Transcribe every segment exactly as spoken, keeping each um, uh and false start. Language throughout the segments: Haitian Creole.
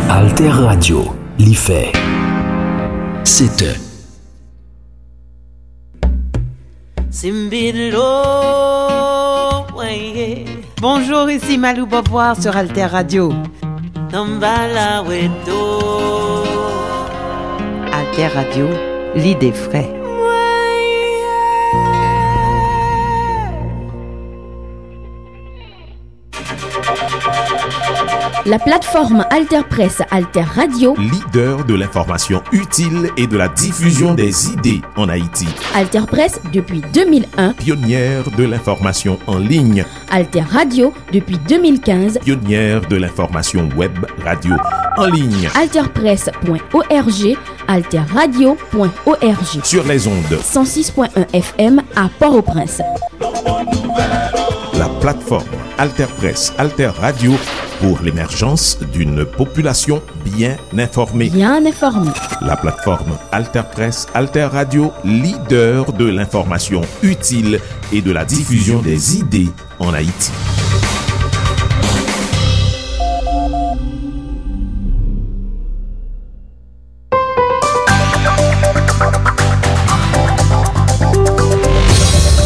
Alter Radio, li fè sèt è. Simbidlo, weye. Bonjour, ici Malou Beauvoir sur Alter Radio. Tambala weto. Alter Radio, l'idée frais. La plateforme Alter Presse, Alter Radio. Leader de l'information utile et de la diffusion des idées en Haïti. Alter Presse depuis deux mille un. Pionnière de l'information en ligne. Alter Radio depuis deux mille quinze. Pionnière de l'information web radio en ligne. Alter Presse point O R G, Alter Radio point O R G. Sur les ondes. Cent six point un F M à Port-au-Prince. La plateforme Alter Presse, Alter Radio pour l'émergence d'une population bien informée. Bien informée. La plateforme Alter Presse, Alter Radio, leader de l'information utile et de la diffusion des idées en Haïti.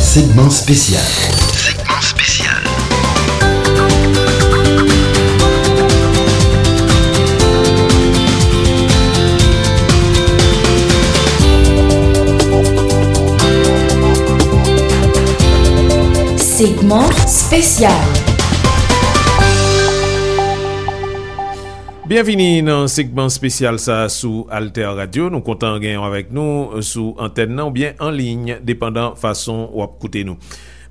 Segment spécial. Segment spécial. Segment spécial. Byenvini nan segman espesyal sa a sou Alter Radio. Nou kontan genyen w avèk nou sou antèn nan oubyen an liy, depandan fason w ap koute nou.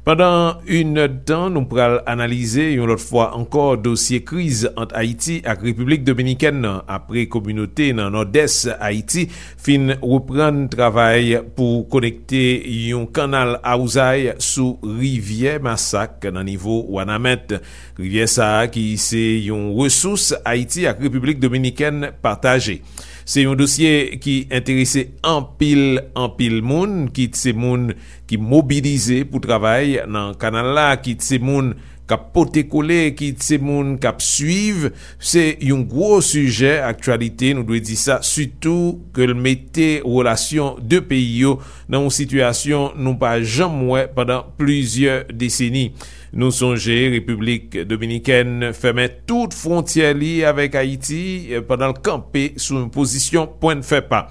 Pandan inèdtan, nou pral analize yon lòt fwa ankò dosye kriz ant Ayiti ak Repiblik Dominikèn nan, apre kominote nan Nòdès Ayiti fin reprann travay pou konekte yon kanal awzay sou rivyè Masak nan nivo Wanament. Rivyè sa a ki se yon resous Ayiti ak Repiblik Dominikèn pataje. Se yon dosye ki enterese anpil, anpil moun, kit se moun ki mobilize pou travay nan kanal la, kit se moun k ap pote kole, kit se moun k ap swiv. Se yon gwo sijè aktyalite, nou dwe di sa, sitou ke l mete relasyon de peyi yo nan yon sitiyasyon nou pa janm wè pandan plizyè deseni. Nou sonje Repiblik Dominikèn fèmen tout fwontyè li avèk Ayiti, eh, pandan l kanpe sou yon pozisyon pwen n fè pa.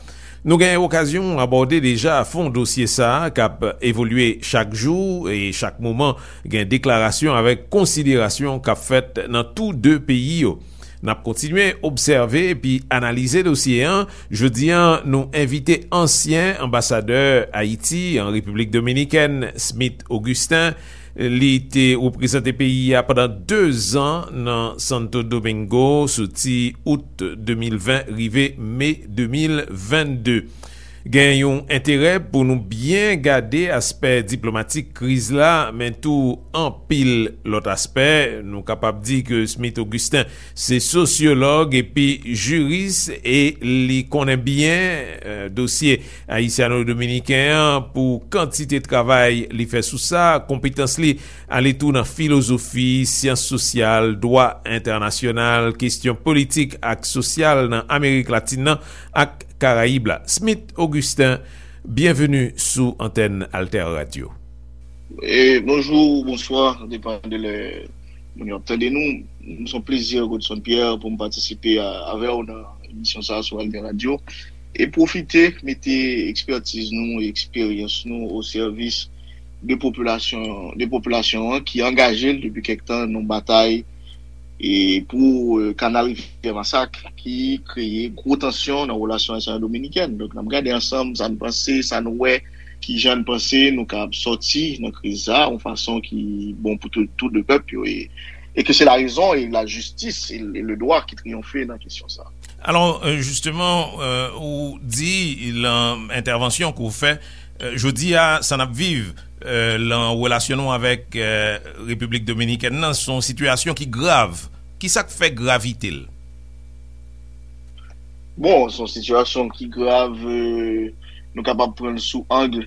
Nou gen okazyon abòde deja fon dosye sa a k ap evolye chak jou e chak moman gen deklarasyon avèk konsiderasyon k ap fèt nan tou de peyi yo. N ap kontinye obsève epi analize dosye an. Jodi a, nou envite ansyen anbasadè Ayiti an Repiblik Dominikèn, Smith Augustin. Li te reprezante peyi a pandan de zan nan Santo Domingo, soti out de mil ven rive me de mil vennde. Gen yon enterè pou nou byen gade aspè diplomatik kriz la, men tou anpil lòt aspè. Nou kapab di ke Smith Augustin se sosyològ epi jiris e li konnen byen, eh, dosye ayisyano-dominiken an pou kantite travay li fè sou sa, konpetans li ale tou nan filozofi, syans sosyal, dwa entènasyonal, kesyon politik ak sosyal nan Amerik Latin nan ak Karayib la. Smith Augustin, byenveni sou antèn Alter Radio. E, bonjou, bonswa, depann de lè moun yo ap tande nou. M se yon plezi, Godson Pierre, pou m patisipe a, avè w nan emisyon sa a sou Alter Radio. E pwofite mete ekspètiz nou e eksperyans nou o sèvis de popilasyon, de popilasyon an ki angaje l depi kèk tan nan batay e pou, eh, kanal Rivyè Masak ki kreye gwo tansyon nan relasyon ayisyen-dominikèn. Donk, n ap gade ansanm sa n panse, sa n wè, ki jan n panse nou kab sòti nan kriz sa a, yon fason ki bon pou tou, tou de pèp yo, e, e ke se la rezon e la jistis e, e le dwa ki triyonfe nan kesyon sa a. Alò, euh, jisteman, euh, ou di lan entèvansyon ke w fè, euh, jodi a, sa n ap viv, euh, lan relasyon nou avèk, euh, Repiblik Dominikèn nan, se yon sitiyasyon ki grav. Kisa k fè gravite l? Bon, se yon sitiyasyon ki grav, euh, nou kapab pran l sou ang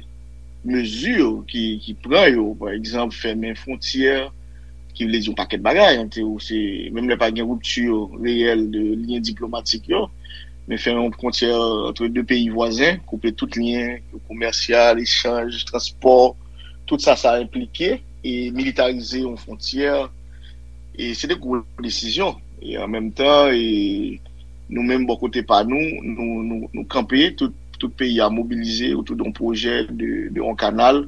mezi ki, ki pran yo. Pa egzanp, fèmen fwontyè, ki vle di yon pakèt bagay, ant yo, se, menm lè pa gen ripti reyèl de lyen diplomatik yo, men fè yon fwontyè ant de peyi vwazen, koupe tout lyen komèsyal, echanj, transpò, tout sa, sa enplike, e militarize yon fwontyè, e se de gwo desizyon. E an menm tan, e nou menm, bò kote pa nou, nou, nou, nou kanpe, tout, tout peyi a mobilize otou de yon pwojè de, de yon kanal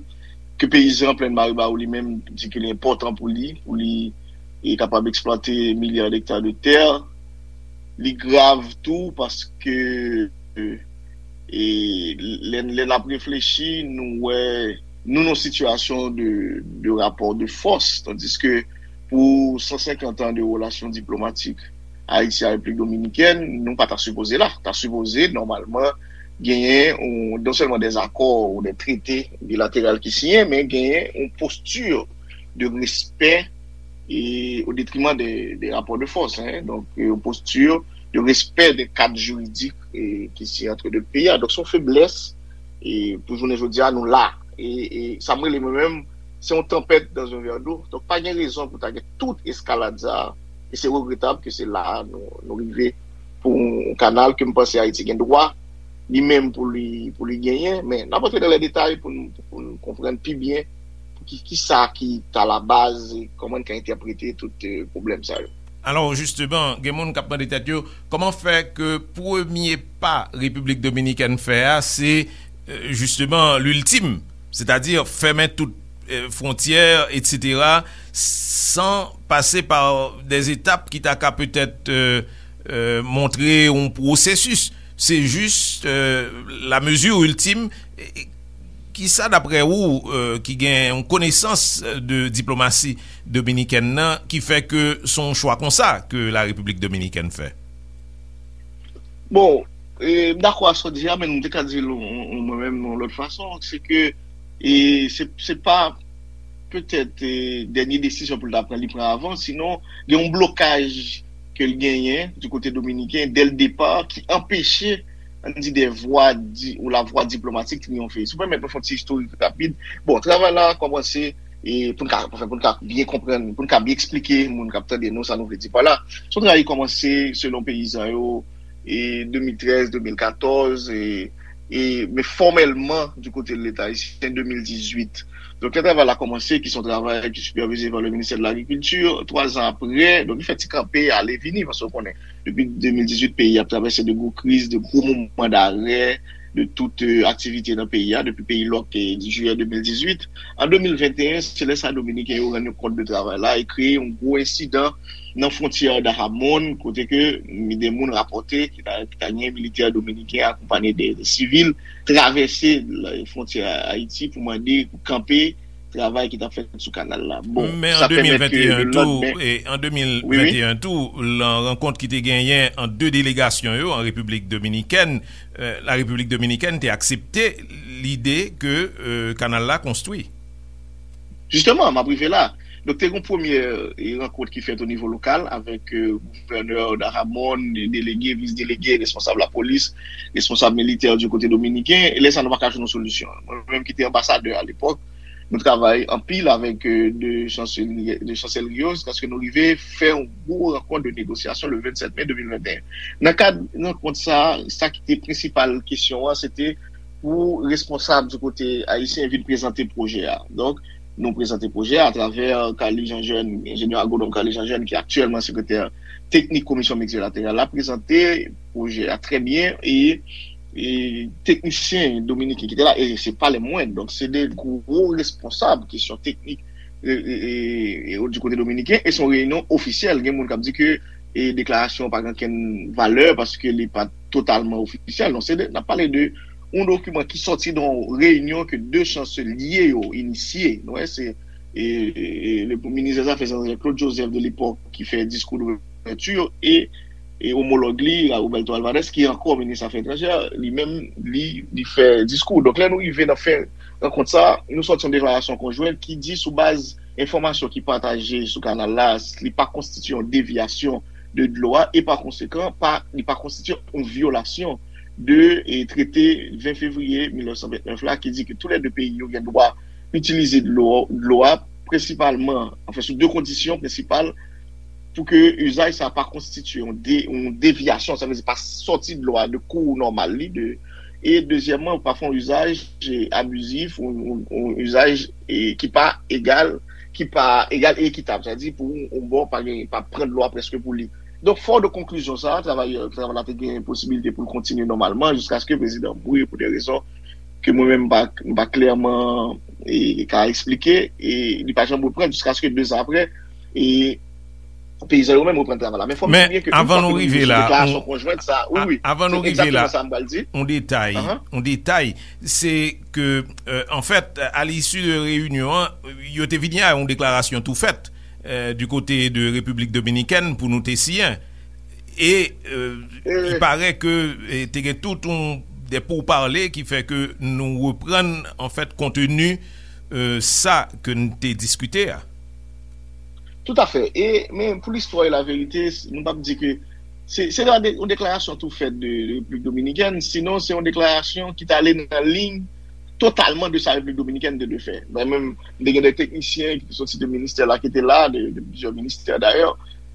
ke peyizan Plèn Maribawou li menm di ke li enpòtan pou li, pou li e kapab eksplwate milya dekta de tè. Li grav tou paske e, lè, lè n ap reflechi, nou wè nou nan sitiyasyon de, de rapò de fòs, tandiske pou san senkant an de relasyon diplomatik Ayiti a Repiblik Dominikèn, nou pa ta sipoze la. Ta sipoze, nòmalman, genyen yon, non sèlman dè akò ou dè trete bilateral ki siyen, men genyen yon posti de respè e o detriman de, de rapò de fòs, hein. Donk, yon posti de respè de kad jiridik e, ki siyen ant de peyi a. Donk, se yon feblès e, pou jounen jodi a, nou la. E, e sa m rele mwen menm, se yon tanpèt dans un verre d'eau. Donk, pa gen rezon pou ta gen tout eskalad sa a. E se regretab ke se la a nou, nou rive pou yon kanal ke m panse Ayiti gen dwa li menm pou li, pou li genyen. Men n ap antre nan lè detay pou n, pou n konprann pi byen pou ki, ki sa ki ta labaz e kòman n ka entèprete tout e, pwoblèm sa yo. Alò, jisteman, gen moun k ap mande tèt yo, kòman fè ke premye pa Repiblik Dominikèn fè a, se, e, jisteman, liltim, sètadi fèmen tout, e, fwontyè, etsetera, san pase pa dè etap ki ta ka petèt, e, e, montre yon pwosesis. Se jis, e, la mezi iltim. E, e, kisa, daprè ou, e, ki gen yon konesans de diplomasi dominikèn nan, ki fè ke se yon chwa konsa ke la Repiblik Dominikèn fè? Bon, e, m dakò a sa w di a, men m te ka di l yon, yon, mwen menm yon lòt fason, se ke e, se, se pa petèt e, dènye desizyon pou l ta pran, li pran avan, sinon gen yon blokaj ke l genyen di kote dominiken dè l depa ki anpeche, ann di, dè vwa di, ou lavwa diplomatik triyonfe. Si w pèmèt mwen fè yon ti istorik rapid, bon, travay la kòmanse e, pou n ka, anfen, pou n ka byen konprann, pou n ka byen eksplike moun k ap tande nou sa nou vle di pa la. Se yon travay ki kòmanse selon peyizan yo e, de mil trèz, de mil katòz, e, e, men fòmèlman, di kote de Leta ayisyen, de mil dizuit. Donk, lè travay la kòmanse, ki se yon travay ki sipèvize pa le ministè de lagrikilti, twa zan apre, donk, li fè ti kanpe, ale vini, paske w konnen, depi de mil dizuit, peyi a ap travèse de gwo kriz, de gwo moman darè, de tout e, aktivite nan peyi a, depi peyi lòk e, di jiyè de mil dizuit. An de mil venteyen, se lè sa Dominiken yo rann yo kont de travay la e kreye yon gwo ensidan nan fwontyè Dajabón, kote ke de moun rapòte ki ta, ki ta gen militè dominiken akonpanye de, de sivil travèse la, fwontyè Ayiti pou mande, pou kanpe travay ki t ap fèt sou kanal la. Bon, men an sa pèmèt ke de lòt, men, e, an wi, wi, de mil venteyen tou, lan rankont ki te genyen ant de delegasyon yo an Repiblik Dominikèn, e, la Repiblik Dominikèn te aksepte lide ke, e, kanal la konstwi. Jisteman, m ap rive la. Donk, te gen yon premye e, rankont ki fèt o nivo lokal avèk e, gouvènè Dajabón, delege, vis delege, responsab lapolis, responsab militè di kote dominiken. E lè sa, nou pa ka jwenn yon solisyon. Mwen menm ki te anbasadè alepòk, nou travay anpil avèk e, de chansel-, de chansèlri yo, jiskaske nou rive fè yon gwo rankont de negosyasyon le vennsèt me de mil venteyen. Nan kad rankont sa, sa ki te prensipal kesyon an, se te pou responsab di kote ayisyen vin prezante pwojè a. Donk, nou prezante pwojè a atravè Carly Jean Jeune, enjenyè agwonòm Carly Jean Jeune, ki aktyèlman sekretè teknik Komisyon Miltilateral la, prezante pwojè a trè byen e, e teknisyen dominiken ki te la, e se pa lè mwen, donk se de gwo responsab kesyon teknik e, e, e, e, di kote dominiken, e se yon reyinyon ofisyèl. Gen moun k ap di ke e deklarasyon pa gen okenn valè paske li pa totalman ofisyèl. Non, se de, n ap pale de yon dokiman ki sòti de yon reyinyon ke de chanselye yo inisye. Nou wè, se e, e, e, le minis dè zafè etranjè Claude Joseph de lepòk ki fè diskou douvèti e, e omològ li, Roberto Alvarez, ki ankò minis afè etranjè, li menm, li, li fè diskou. Donk, lè nou rive nan fen rankont sa, nou sòti yon deklarasyon konjwen ki di sou baz enfòmasyon ki pataje sou kanal la, li pa konstitye yon devyasyon de dlo a e pa konsekan, pa, li pa konstitye yon vyolasyon de e, trete ven fevriye mil nèf san vennèf la ki di ke tou lè de peyi yo gen dwa itilize dlo, dlo a prensipalman, anfen, sou de kondisyon prensipal, pou ke izaj sa pa konstitye yon, de, yon devyasyon, sa vle di pa sòti dlo a de kou nòmal li, de, e dezyèmman, pa fè yon izaj abizif, yon, yon, yon izaj e, ki pa egal, ki pa egal e ekitab, sa vle di pou yon bò pa gen, pa pran dlo a prèske pou li. Donk, fò de konklizyon sa, travay, travay la te gen posibilite pou l kontinye nòmalman jiskaske prezidan mouri pou de rezon ke mwen menm m pa, m pa klèman e, ka eksplike, e li pa janm reprann jiskaske de zan apre, e peyizan yo menm reprann travay la. Men fò m di byen ke yon fwa ke nou rive sou deklarasyon konjwent sa, wi, wi, se egzakteman sa m pral di. On detay, on detay, se ke, euh, an fèt, a l'issue de reyinyon an, yo te vini a yon deklarasyon tou fèt euh, du côté de Repiblik Dominikèn pou nou te siyen. E euh, il paraît que eh, te gen tout un, des pourparlers ki fè ke nou reprann an fèt konteni euh, sa ke n te diskite a. Tout à fait. E, men pou listwa e laverite, nou p ap di ke se se yon deklarasyon tou fèt de Repiblik Dominikèn, sinon se yon deklarasyon ki t ale nan liy totalman de sa Repiblik Dominikèn te dwe fè. Mwen menm, m te gen de teknisyen ki te soti de ministè la, ki te la, de, de plizyè ministè dayè,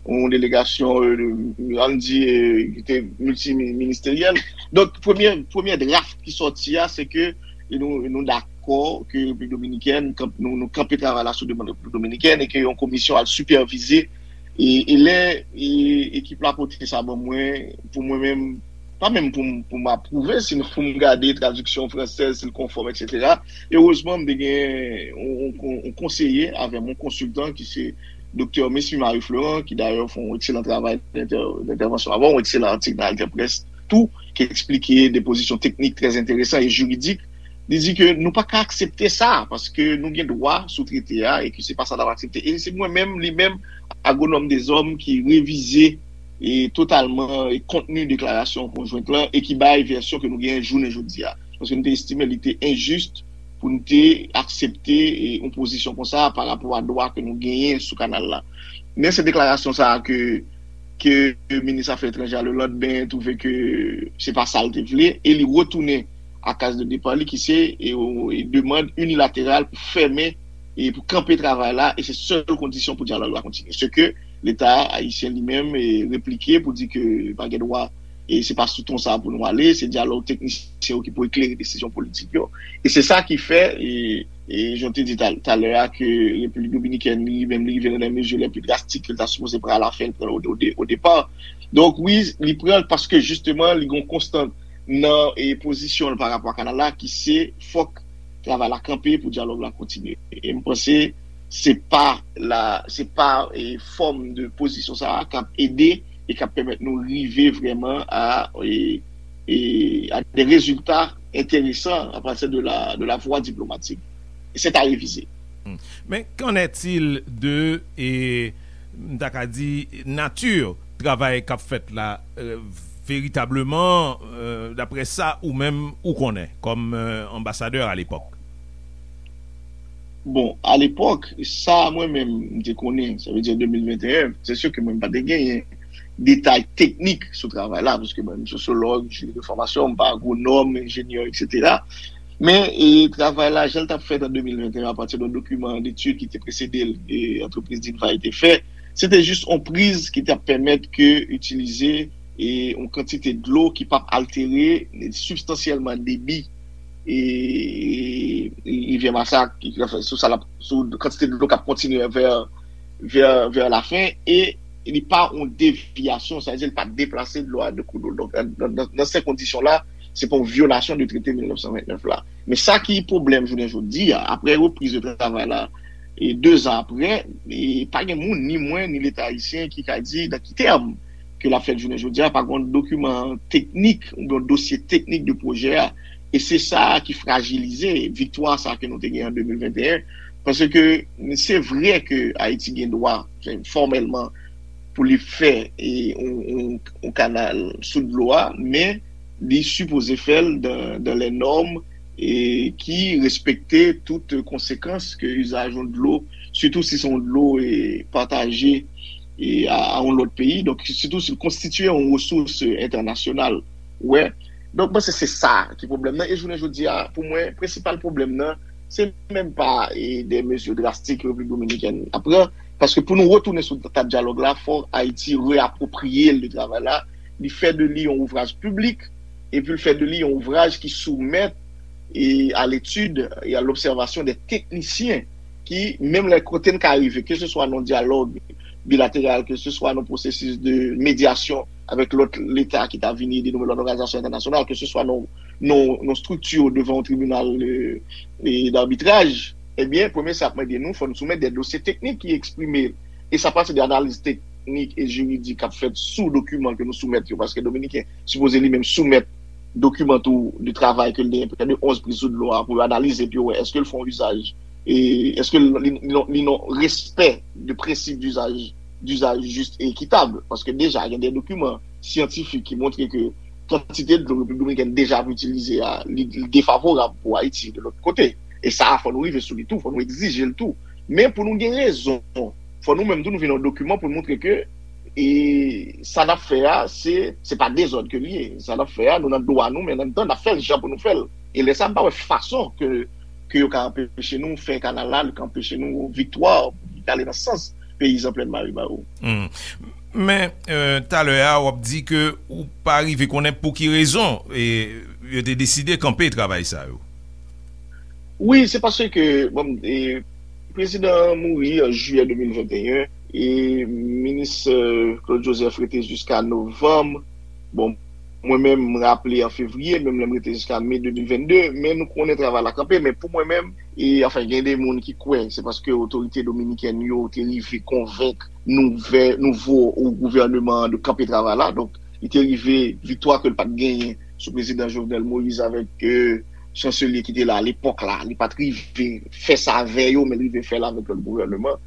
yon delegasyon euh, ann di euh, ki te miltiminisiteryèl. Donk, premye, premye draft ki sòti a, se ke nou, nou dakò ke Repiblik Dominikèn, nou, nou kanpe travay la sou demann Repiblik Dominikèn e ke yon komisyon al sipèvize e, e lè e, ekip la pote sa ban mwen, pou mwen menm, pa menm pou m pou m apwouve, sinon pou m gade tradiksyon fransèz, si l konfòm, etsetera. Erezman, m te gen yon konseye avè m, yon konsiltan ki se Doktè Mesmy Marie Florent, ki dayè fè yon ekselan travay dentèvansyon avè w, yon ekselan atik nan Alter Press tou, ki eksplike de pozisyon teknik trè enteresan e jiridik. Li di ke nou pa ka aksepte sa, paske nou gen dwa sou trete a, e ke se pa sa n ap aksepte. E se mwen menm, li menm, Agwonòm Dezòm, ki revize e totalman e kontni deklarasyon konjwent lan e ki bay vèsyon ke nou genyen jounen jodi a. Paske nou te estime li te enjis pou nou te aksepte e yon pozisyon konsa pa rapò a dwa ke nou genyen sou kanal la. Men se deklarasyon sa a ke, ke minis afè etranjè a lelandmen twouve ke se pa sa l te vle e li retounen a kaz de depa li ki se e, e demann inilateral pou fèmen e pou kanpe travay la e se sèl kondisyon pou dyalòg la kontinye. Se ke Leta ayisyen li menm e replike pou di ke pa gen dwa e se pa sou ton sa pou nou ale, se dyalòg teknisyen yo ki pou eklere desizyon politik yo. E se sa ki fè, e, e jan w te di talè a, ke Repiblik Dominikèn li menm li rive nan de mezi lè pi drastik ke l ta sipoze pran a la fen l pran o depa. Donk wi, li pran l paske jisteman li gen yon konstant nan e pozisyon l pa rapò a kanal la ki se fòk travay la kanpe pou dyalòg la kontinye. E m panse se pa la, se pa e, fòm de pozisyon sa a k ap ede e k ap pèmèt nou rive vrèman a, e, e, a de rezilta enteresan a pati de la, de la vwa diplomatik. E se ta revize. Men qu'en est-il de e, m ta ka di nati travay k ap fèt la veritableman daprè sa ou menm ou konnen kòm anbasadè alepòk? Bon, alepòk, sa mwen menm m te konnen, sa vle di an de mil venteyen, se si ke mwen m pa te genyen detay teknik sou travay la, paske mwen m sosyològ de fòmasyon, m pa agwonòm, enjenyè, etsetera. Men e, travay la, jan l t ap fèt an de mil venteyen apati de yon dokiman detid ki te presede l e antrepriz Dinvay te fè, se te jis yon priz ki t ap pèmèt ke itilize e yon kantite dlo ki p ap altere sibstansyèlman debi e rivyè Masak, sou sa l ap, sou kantite dlo k ap kontinye vè vè, vè lafen e li pa yon devyasyon, sa vle di li pa deplase dlo a de kou dlo. Donk, nan, nan, nan se kondisyon la, se pa yon vyolasyon de trete mil nèf san ventnèf la. Men sa ki pwoblèm jounen jodi a, apre repriz de travay la, e de zan apre, e pa gen moun, ni mwen, ni Leta ayisyen, ki ka di nan ki tèm ke l ap fèt jounen jodi a, pa gen yon dokiman teknik oubyen yon dosye teknik de pwojè a. E se sa ki frajilize viktwa sa ke nou te gen an de mil venteyen. Paske se vre ke Ayiti gen dwa fòmèlman pou li fè yon kanal sou dlo a, men li sipoze fè l dans les normes ki respekte tout konsekans ke izaj yon dlo, sitou si se yon dlo pataje a yon lòt peyi, donk sitou si l konstitye yon resous entènasyonal. Wè. Donk mwen se se sa ki pwoblèm nan. E jounen jodi a, pou mwen, prensipal pwoblèm nan, Se menm pa e, de mezi drastik Repiblik Dominikèn ap pran, paske pou nou retounen sou tab dyalòg la, fò Ayiti reapwopriye l de travay la, li fè de li yon ouvraj piblik, epi l fè de li yon ouvraj ki soumèt e, a letid e a lobsèvasyon de teknisyen ki, menm lè kote n ka rive, keseswa nan dyalòg bilateral, keseswa nan pwosesis de medyasyon avèk lòt leta ki ta vini ede nou, lòt òganizasyon entènasyonal, keseswa nan, nan, nan estrikti devan yon tribinal e, e, dabitraj, ebyen, premye sa ap mande nou, fò nou soumèt de dosye teknik ki eksprime, e sa pase de analiz teknik e jiridik k ap fèt sou dokiman ke nou soumèt yo, paske Dominiken sipoze li menm soumèt dokiman tou de travay ke l genyen, prè de onz priz sou dlo a, pou yo analize, epi yo wè èske l fè yon izaj, e èske li, li, li nan respè de prensip dizaj, dizaj jis e ekitab, paske deja gen de dokiman syantifik ki montre ke kantite dlo Repiblik Dominikèn deja ap itilize a, li, li defavorab pou Ayiti de lòt kote. E sa a, fò nou rive sou li tou, fò nou egzije l tou. Men pou nou gen rezon, fò nou menm tou nou vin yon dokiman pou nou montre ke e sa n ap fè a, se, se pa dezòd ke l ye. Sa n ap fè a, nou nan dwa nou, men an menm tan, n ap fè l jan pou nou fè l. E lè sa, m pa wè fason ke, ke yo ka anpeche nou fè kanal la, yo ka anpeche nou viktwa ki ale nan sans peyizan Plèn Maribaro. Hmm. Men, euh, talè a, w ap di ke ou pa rive konnen pou ki rezon e, yo te deside kanpe travay sa yo. Wi, se paske, bon, e, prezidan an mouri an jiyè de mil venteyen, e minis, euh, Claude Joseph rete jiska novanm. Bon, mwen menm, m raple an fevriye, menm lè m rete jiska me de mil vennde, men nou konnen travay la kanpe, men pou mwen menm, e, anfen, gen de moun ki kwè, se paske otorite dominikèn yo te rive konvenk nouvè, nouvo gouvèneman an de kanpe travay la, donk, li te rive viktwa ke l pa t genyen sou prezidan Jovenel Moïse avèk, euh, chanselye ki te la alepòk la, li pa t rive fè sa avè yo, men li rive fè l avèk lòt gouvèneman.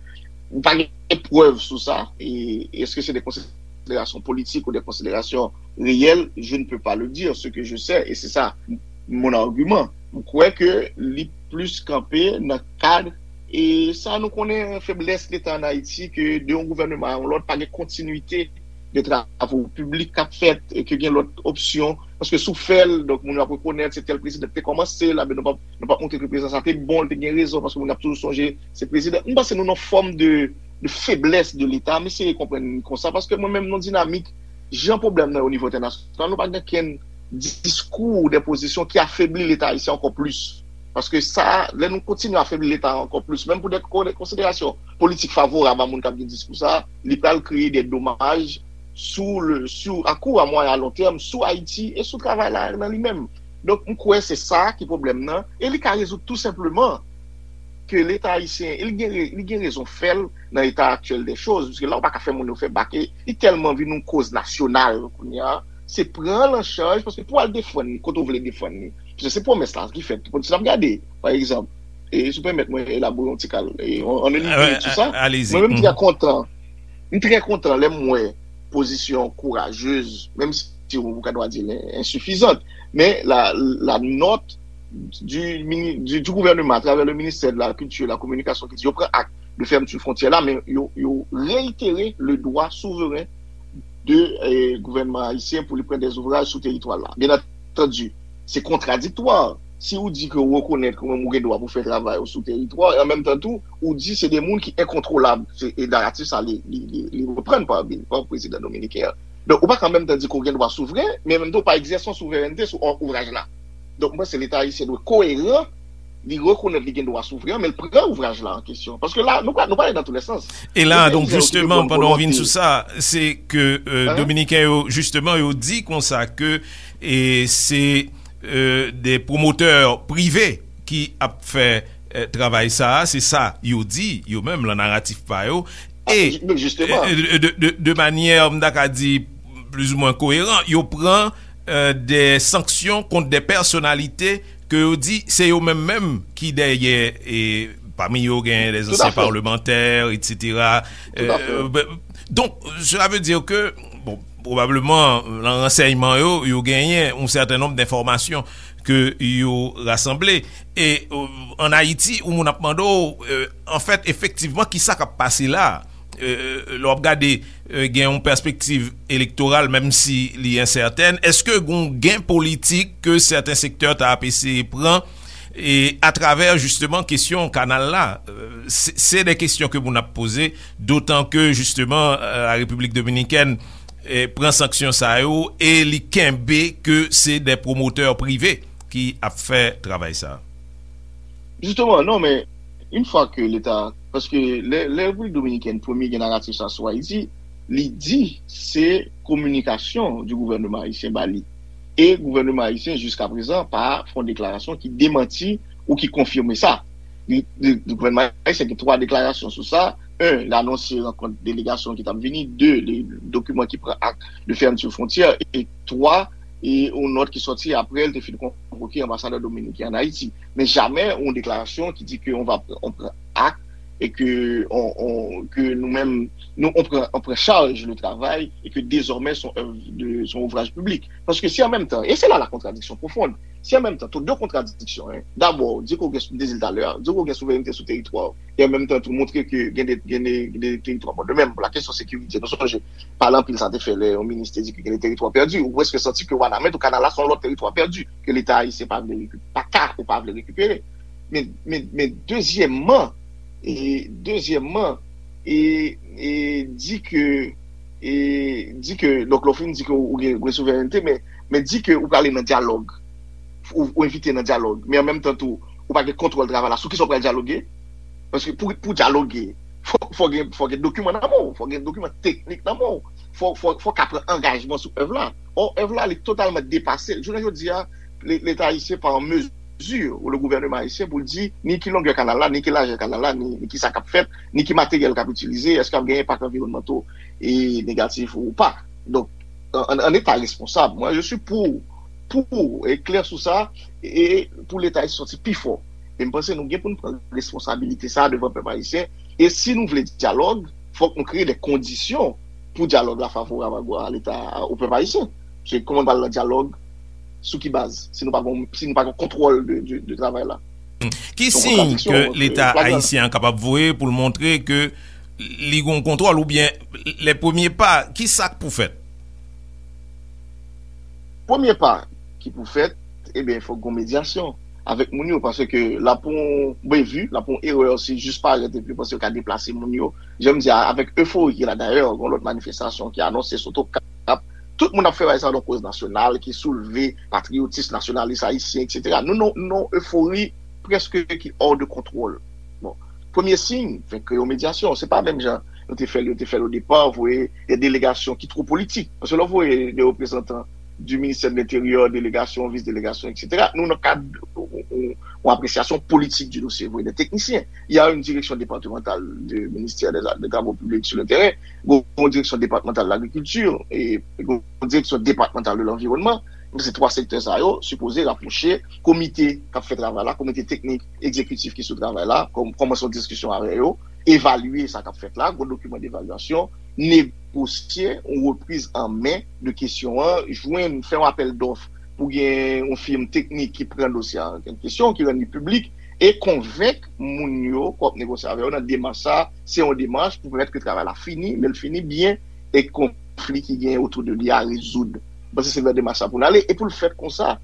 M pa gen prèv sou sa. E èske se de konsiderasyon politik ou de konsiderasyon reyèl? Je ne peux pas le dire. Ce que je sais, et c'est ça mon argument, m kwè ke li plis kanpe nan kad, e sa nou konnen, feblès Leta an Ayiti, ke de yon gouvèneman a yon lòt, pa gen kontinwite de travo piblik k ap fèt, e ke gen lòt opsyon. Paske si w fè l, donk, moun yo ap rekonèt se tèl prezidan ki te kòmanse l, men nou p ap, nou p ap montre ke prezidan sa te bon, li te gen rezon, paske moun ap toujou sonje se prezidan. M panse nou nan fòm de, de feblès de Leta, m eseye konprann konsa, paske mwen menm, nan dinamik, jan pwoblèm nan ye o nivo entènasyonal, nou pa gen kenn diskou, de pozisyon ki afebli Leta ayisyen ankò plis. Paske sa, lè nou kontinye afebli Leta ankò plis, menm pou de ko-, de konsiderasyon politik favorab a moun k ap gen diskou sa, li pral kreye de domaj sou le, sou, a kou, a mwayen, a lon tèm, sou Ayiti e sou travay la nan li menm. Donk, m kwè se sa ki pwoblèm nan, e li ka rezoud tou senpleman ke Leta ayisyen, e li gen re-, li gen rezon fè l nan eta aktyèl de choz, paske la ou pa ka fè moun yo fè bak, e li tèlman vin yon koz nasyonal kounye a, se pran l an chaj, paske pou al defann li, kote w vle defann li. Paske se pwomès la ki fèt. Si n ap gade, pa egzanp, e si w pèmèt mwen elabore yon ti kal, e, an, an minit sou sa, mwen menm, m trè kontan, m trè kontan lè m wè pozisyon kourajez, menm si ou ka dwa di l ensifizant, men la, la nòt du, mini-, du, du gouvernement à travers le ministère de la Culture et de la Communication ki di yo pran ak de fermeture frontière la, men yo, yo réitéré le droit souverain de, eh, gouvènman ayisyen pou li pran des ouvrages sou teritwa la. Bien entendu, se kontradiktwa. Si ou di ke ou rekonèt ke ou menm ou gen dwa pou fè travay ou sou teritwa, e an menm tan tou, ou di se de moun ki enkontwolab. Se, e naratif sa, li, li, li, li reprann pa, pa prezidan dominiken an. Donk, ou pa ka an menm tan di ke ou gen dwa souvren, men an menm tan ou pa egzèse yon souverènte sou ou-, ouvraj la. Donk, mwen panse Leta ayisyen dwe koeran, li rekonèt li gen dwa souvren, men l pran ouvraj la an kesyon. Paske la, nou pa, nou pale dans tous les sens. E la, donk, jisteman, pandan w vin sou sa, se ke, euh, Dominiken yo, jisteman, yo di konsa ke, e se, euh, de pwomotè prive ki ap fè, euh, travay sa a, se sa yo di, yo menm, nan naratif pa yo. E, euh, de, de, de, de manyè, m ta ka di, plizoumwen koeran, yo pran, euh, de sanksyon kont de pèsonalite ke yo di se yo menm menm ki dèyè, e pami yo gen de zansyen palmantè, etsetera. Euh, ben, donk, cela veut dire que, bon, pwobableman, nan ransèyman yo, yo genyen yon sèten nonb denfòmasyon ke yo rasanble. E, euh, ann Ayiti, yon moun ap mande w, euh, anfèt, efektivman, kisa k ap pase la? Euh, lè w ap gade, euh, gen yon pèspektiv elektoral, menm si li ensètèn, èske gen yon gen politik ke sèten sektè ta ap eseye pran, E atravè jisteman kesyon kanal la, se de kesyon ke moun ap poze, dotan ke jisteman la Repiblik Dominikèn pran sanksyon sa yo e li kenbe ke se de pwomotè prive ki ap fè travay sa. Jisteman, non, men yon fwa ke Leta, paske lè Repiblik Dominikèn premye gen naratif sa sou Ayiti, li di se kominikasyon di gouvènman ayisyen ba li. E gouvènman ayisyen jiska prezan pa fè yon deklarasyon ki demanti ou ki konfime sa. Gouvènman ayisyen gen twa deklarasyon sou sa. En, l anonse rankont delegasyon ki t ap vini. De, de dokiman ki pran ak de fèmti fwontyè. E twa, e yon nòt ki sòti apre l te fin konvoke anbasadè dominiken an Ayiti. Men jamè yon deklarasyon ki di ke on va on pran ak e ke on, on, ke nou menm nou on pran on pran chaj le travay e ke dezòmè son œuvre de son ouvraj piblik. Paske si an menm tan, e se la la kontradiksyon pwofonn, si an menm tan, tou de kontradiksyon, en, dabò, di ke w gen, m te di l talè a, di ke w gen souverènte sou teritwa w, e an menm tan tou montre ke gen de, gen de, gen de teritwa, bon, de menm, pou la kesyon sekirite, nou sonje, pale anpil sa te fè lè yon minis te di ke gen de teritwa pèdi, ou prèske santi ke Wanament ou Kanal la se yon lòt teritwa pèdi, ke Leta ayisyen pa vle rekipe, pa ka ou pa vle rekipere. Men, men, men dezyèmman, e, dezyèmman, e, e, di ke, e, di ke, donk lè w fin di ke ou gen, ou gen souverènte, men, men di ke ou prale nan dyalòg, ou, ou envite nan dyalòg, men an menm tan tou, ou pa gen kontwòl travay la, sou kisa w pral dyaloge? Paske pou, pou dyaloge, fò, fò gen, fò gen dokiman nan men w, fò gen dokiman teknik nan men w, fò, fò, fò w ka pran angajman sou èv la. Ò, èv la, li totalman depase. Jounen jodi a, Leta ayisyen pa an mezi, ou le gouvènman ayisyen, pou l di ni ki longè kanal la, ni ki lajè kanal la, ni, ni ki sa k ap fèt, ni ki materyèl k ap itilize, èske ap gen enpak anviwònmanto e negatif ou pa. Donk, an, an eta responsab, mwen, je suis pour, pour, e klè sou sa, e pou Leta ayisyen sòti pi fò. E m panse nou gen pou n pran responsabilite sa a devan pèp ayisyen. E si nou vle dyalòg, fòk nou kreye de kondisyon pou dyalòg la favorab a, a Leta, o pèp ayisyen. Se kòman n pral nan dyalòg, sou ki baz, si nou pa gon, si nou pa gon kontwòl de, de, de travay la? Ki siy ke Leta ayisyen an kapab voye pou l montre ke li gon kontwòl oubyen lè premye pa, ki sa k pou fèt? Premye pa ki pou fèt, ebyen, fòk gon medyasyon avèk moun yo, paske la pou yon bevi, la pou yon erè, se jis parèt epi panse yo ka deplase moun yo. Jan m di a, avèk efori ki la dayè, gon lòt manifestasyon ki anonse sou Tokap. Tout moun ap fè bagay sa nan koz nasyonal, ki soulve patriyotis nasyonalis ayisyen, etsetera. Nou nan yon efori prèske ki hors de contrôle. Bon, premye siy, fè kreye yon medyasyon. Se pa menm jan nou te fè l, yo te fè l o depa, voye de delegasyon ki two politik. Paske lè w voye de reprezantan du ministère de l'Intérieur, delegasyon, vis delegasyon, etsetera, nou nan kad yon apresyasyon politik du dosye, voye de teknisyen. Il y a une direction départementale du ministère des, des Travaux publics sur le terrain, gon direksyon depatmantal lagrikilti, e gon direksyon depatmantal de lanviwònman. Se twa sektè sa yo sipoze rapwoche komite k ap fè travay la, komite teknik egzekitif ki sou travay la, kòm, kòmanse yon diskisyon avè yo, evalye sa k ap fèt la, gon dokiman devalyasyon, negosye yon repriz an men de kesyon an, jwenn, fè yon apèl dòf pou gen yon fim teknik ki pran dosye a an kesyon, ki rann li piblik, e konvenk moun yo k w ap negosye avè yo nan demach sa a, se yon demach pou pèmèt ke travay la fini, men l fini byen, e konfli ki genyen otou de li a rezoud. M panse se nan demach sa pou n ale, e pou l fèt konsa,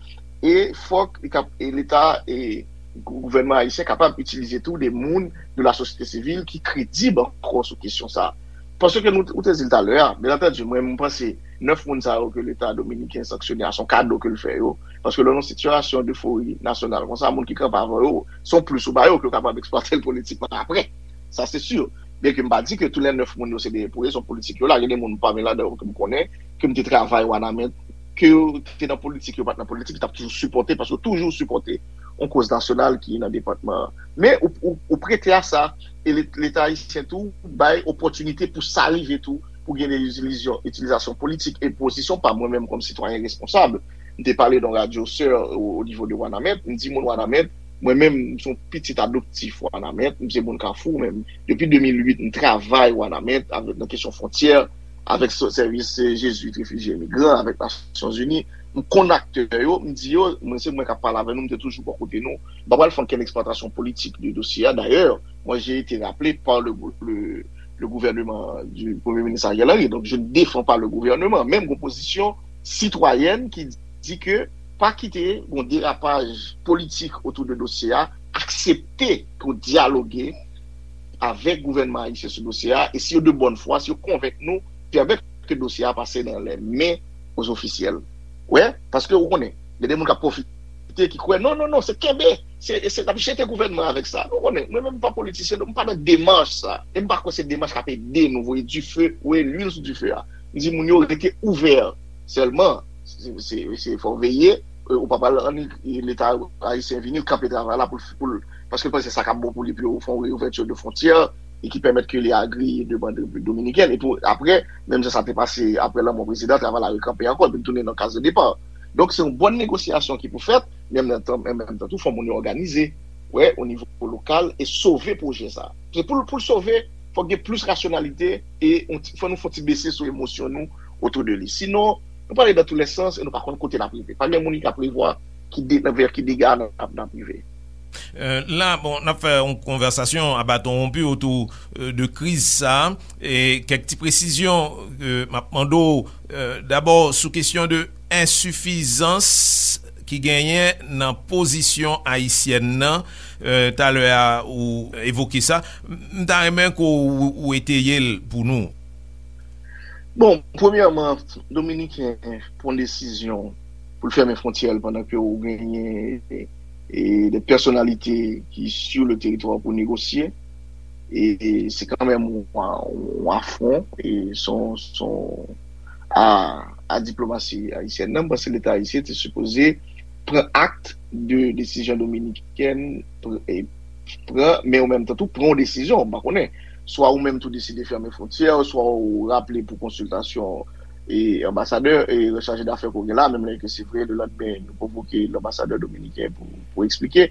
e fòk li kap, e Leta, e gouvènman ayisyen kapab itilize tou de moun de la sosyete sivil ki kredib ankò sou kesyon sa a. Paske nou, ou te di l talè a, byen antandi, mwen, m panse nèf moun sa yo ke Leta dominiken sanksyone a, se yon kado ke l fè yo. Paske lè w nan yon sitiyasyon defori nasyonal konsa, moun ki kanpe avè yo, se yon plis ou ba yo ke yo kapab eksplwate l politikman apre. Sa, se si. Byen ke m pa di ke tou lè nèf moun yo se de pozisyon politik yo la, gen de moun pami ladan yo ke m konnen, ke m te travay Wanament, ke yo te nan politik, yo pa t nan politik, yo t ap toujou sipòte, paske yo toujou sipòte yon koz nasyonal ki nan depatman an. Men ou, ou, ou prete a sa, e Leta ayisyen tou bay opòtinite pou sa rive tou, pou gen de itilizasyon, itilizasyon politik. E pozisyon pa mwen menm kòm sitwayen responsab, m te pale nan radyo sè o nivo de Wanament, m di moun Wanament, mwen menm, m se yon pitit adoptif Wanament, m se moun Kafou, men depi de mil uit, m travay Wanament avèk, nan kesyon fwontyè, avèk sèvis Jezwit refijye migran, avèk Nasyonzini. M konn aktè yo, m di yo, mwen se mwen k ap pale avè nou, m te toujou bò kote nou. M pa pral fè ankenn eksplwatasyon politik de dosye a. Dayè, mwen, j'ai été rappelé par le, le, le gouvernement du Premier ministre Ariel Henry. Donc, je ne défends pas le gouvernement. Men m gon pozisyon sitwayèn ki di ke pa kite yon derapaj politik otou de dosye a, aksepte pou dyaloge avèk gouvènman ayisyen sou dosye a, e si yo de bòn fwa, si yo konvenk nou, pèmèt ke dosye a pase nan lè men ozofisyèl. Wè, paske ou konnen, gen de moun k ap pwofite ki kwè, non, non, non, se kenbe, se, se n ap jete gouvènman avèk sa. Ou konnen, mwen menm m pa politisyen, donk m pa nan demach sa. E m pa kwè se demach k ap ede nou voye dife, voye lwil sou dife a. M di moun yo rete ouvè sèlman. Se, se, se fò veye, e, ou pa pral annik Leta ayisyen vini, l kanpe travay la pou l, pou l, paske l panse sa k ap bon pou li, pou yo fè yon reouvèti de fwontyè, e ki pèmèt ke li agri demann Repiblik Dominikèn. E pou, apre, menm jan sa te pase apre lanmò prezidan, travay la rekanpe ankò, epi l tounen nan kaz de depa. Donk, se yon bòn negosyasyon ki pou fèt, men an menm tan, an menm tan tou, fò moun yo òganize, wè, o nivo lokal, e sove pwojè sa. Se pou l, pou l sove, fòk gen plis rasyonalite, e on ti, fò nou fè on ti bese sou emosyon nou otou de li. Sinon, nou prale dans tous les sens e nou pa konn kote n ap rive. Pa gen moun ki ka prevwa ki de, nan vè ki dega n ap, n ap rive. Euh, la, bon, n ap fè yon konvèsasyon a baton wonpi otou euh, de kriz sa, e kèk ti presizyon ke m ap mande w, euh, dabò sou kesyon de ensifizans ki genyen nan pozisyon ayisyèn nan, euh, talè a ou evoke sa, m ta renmen ke w, ou eteye l pou nou. Bon, premyèman, Dominiken pran desizyon pou l fèmen fwontyè l pandan ke ou genyen e, de pèsonalite ki sou le teritwa pou negosye. E se kanmenm yon, yon afwon, e son, son a, a diplomasi ayisyèn nan, m panse Leta ayisyen te sipoze pran akt de desizyon dominikèn pran, men ou menm tan tou pran yon desizyon, m pa konnen. Swa ou menm tou deside fèmen fwontyè, swa ou raple pou konsiltasyon e anbasadè e chaje dafè ke w gen la, menm lè ke se vre, le landmen nou konvoke lanbasadè dominiken pou, pou eksplike.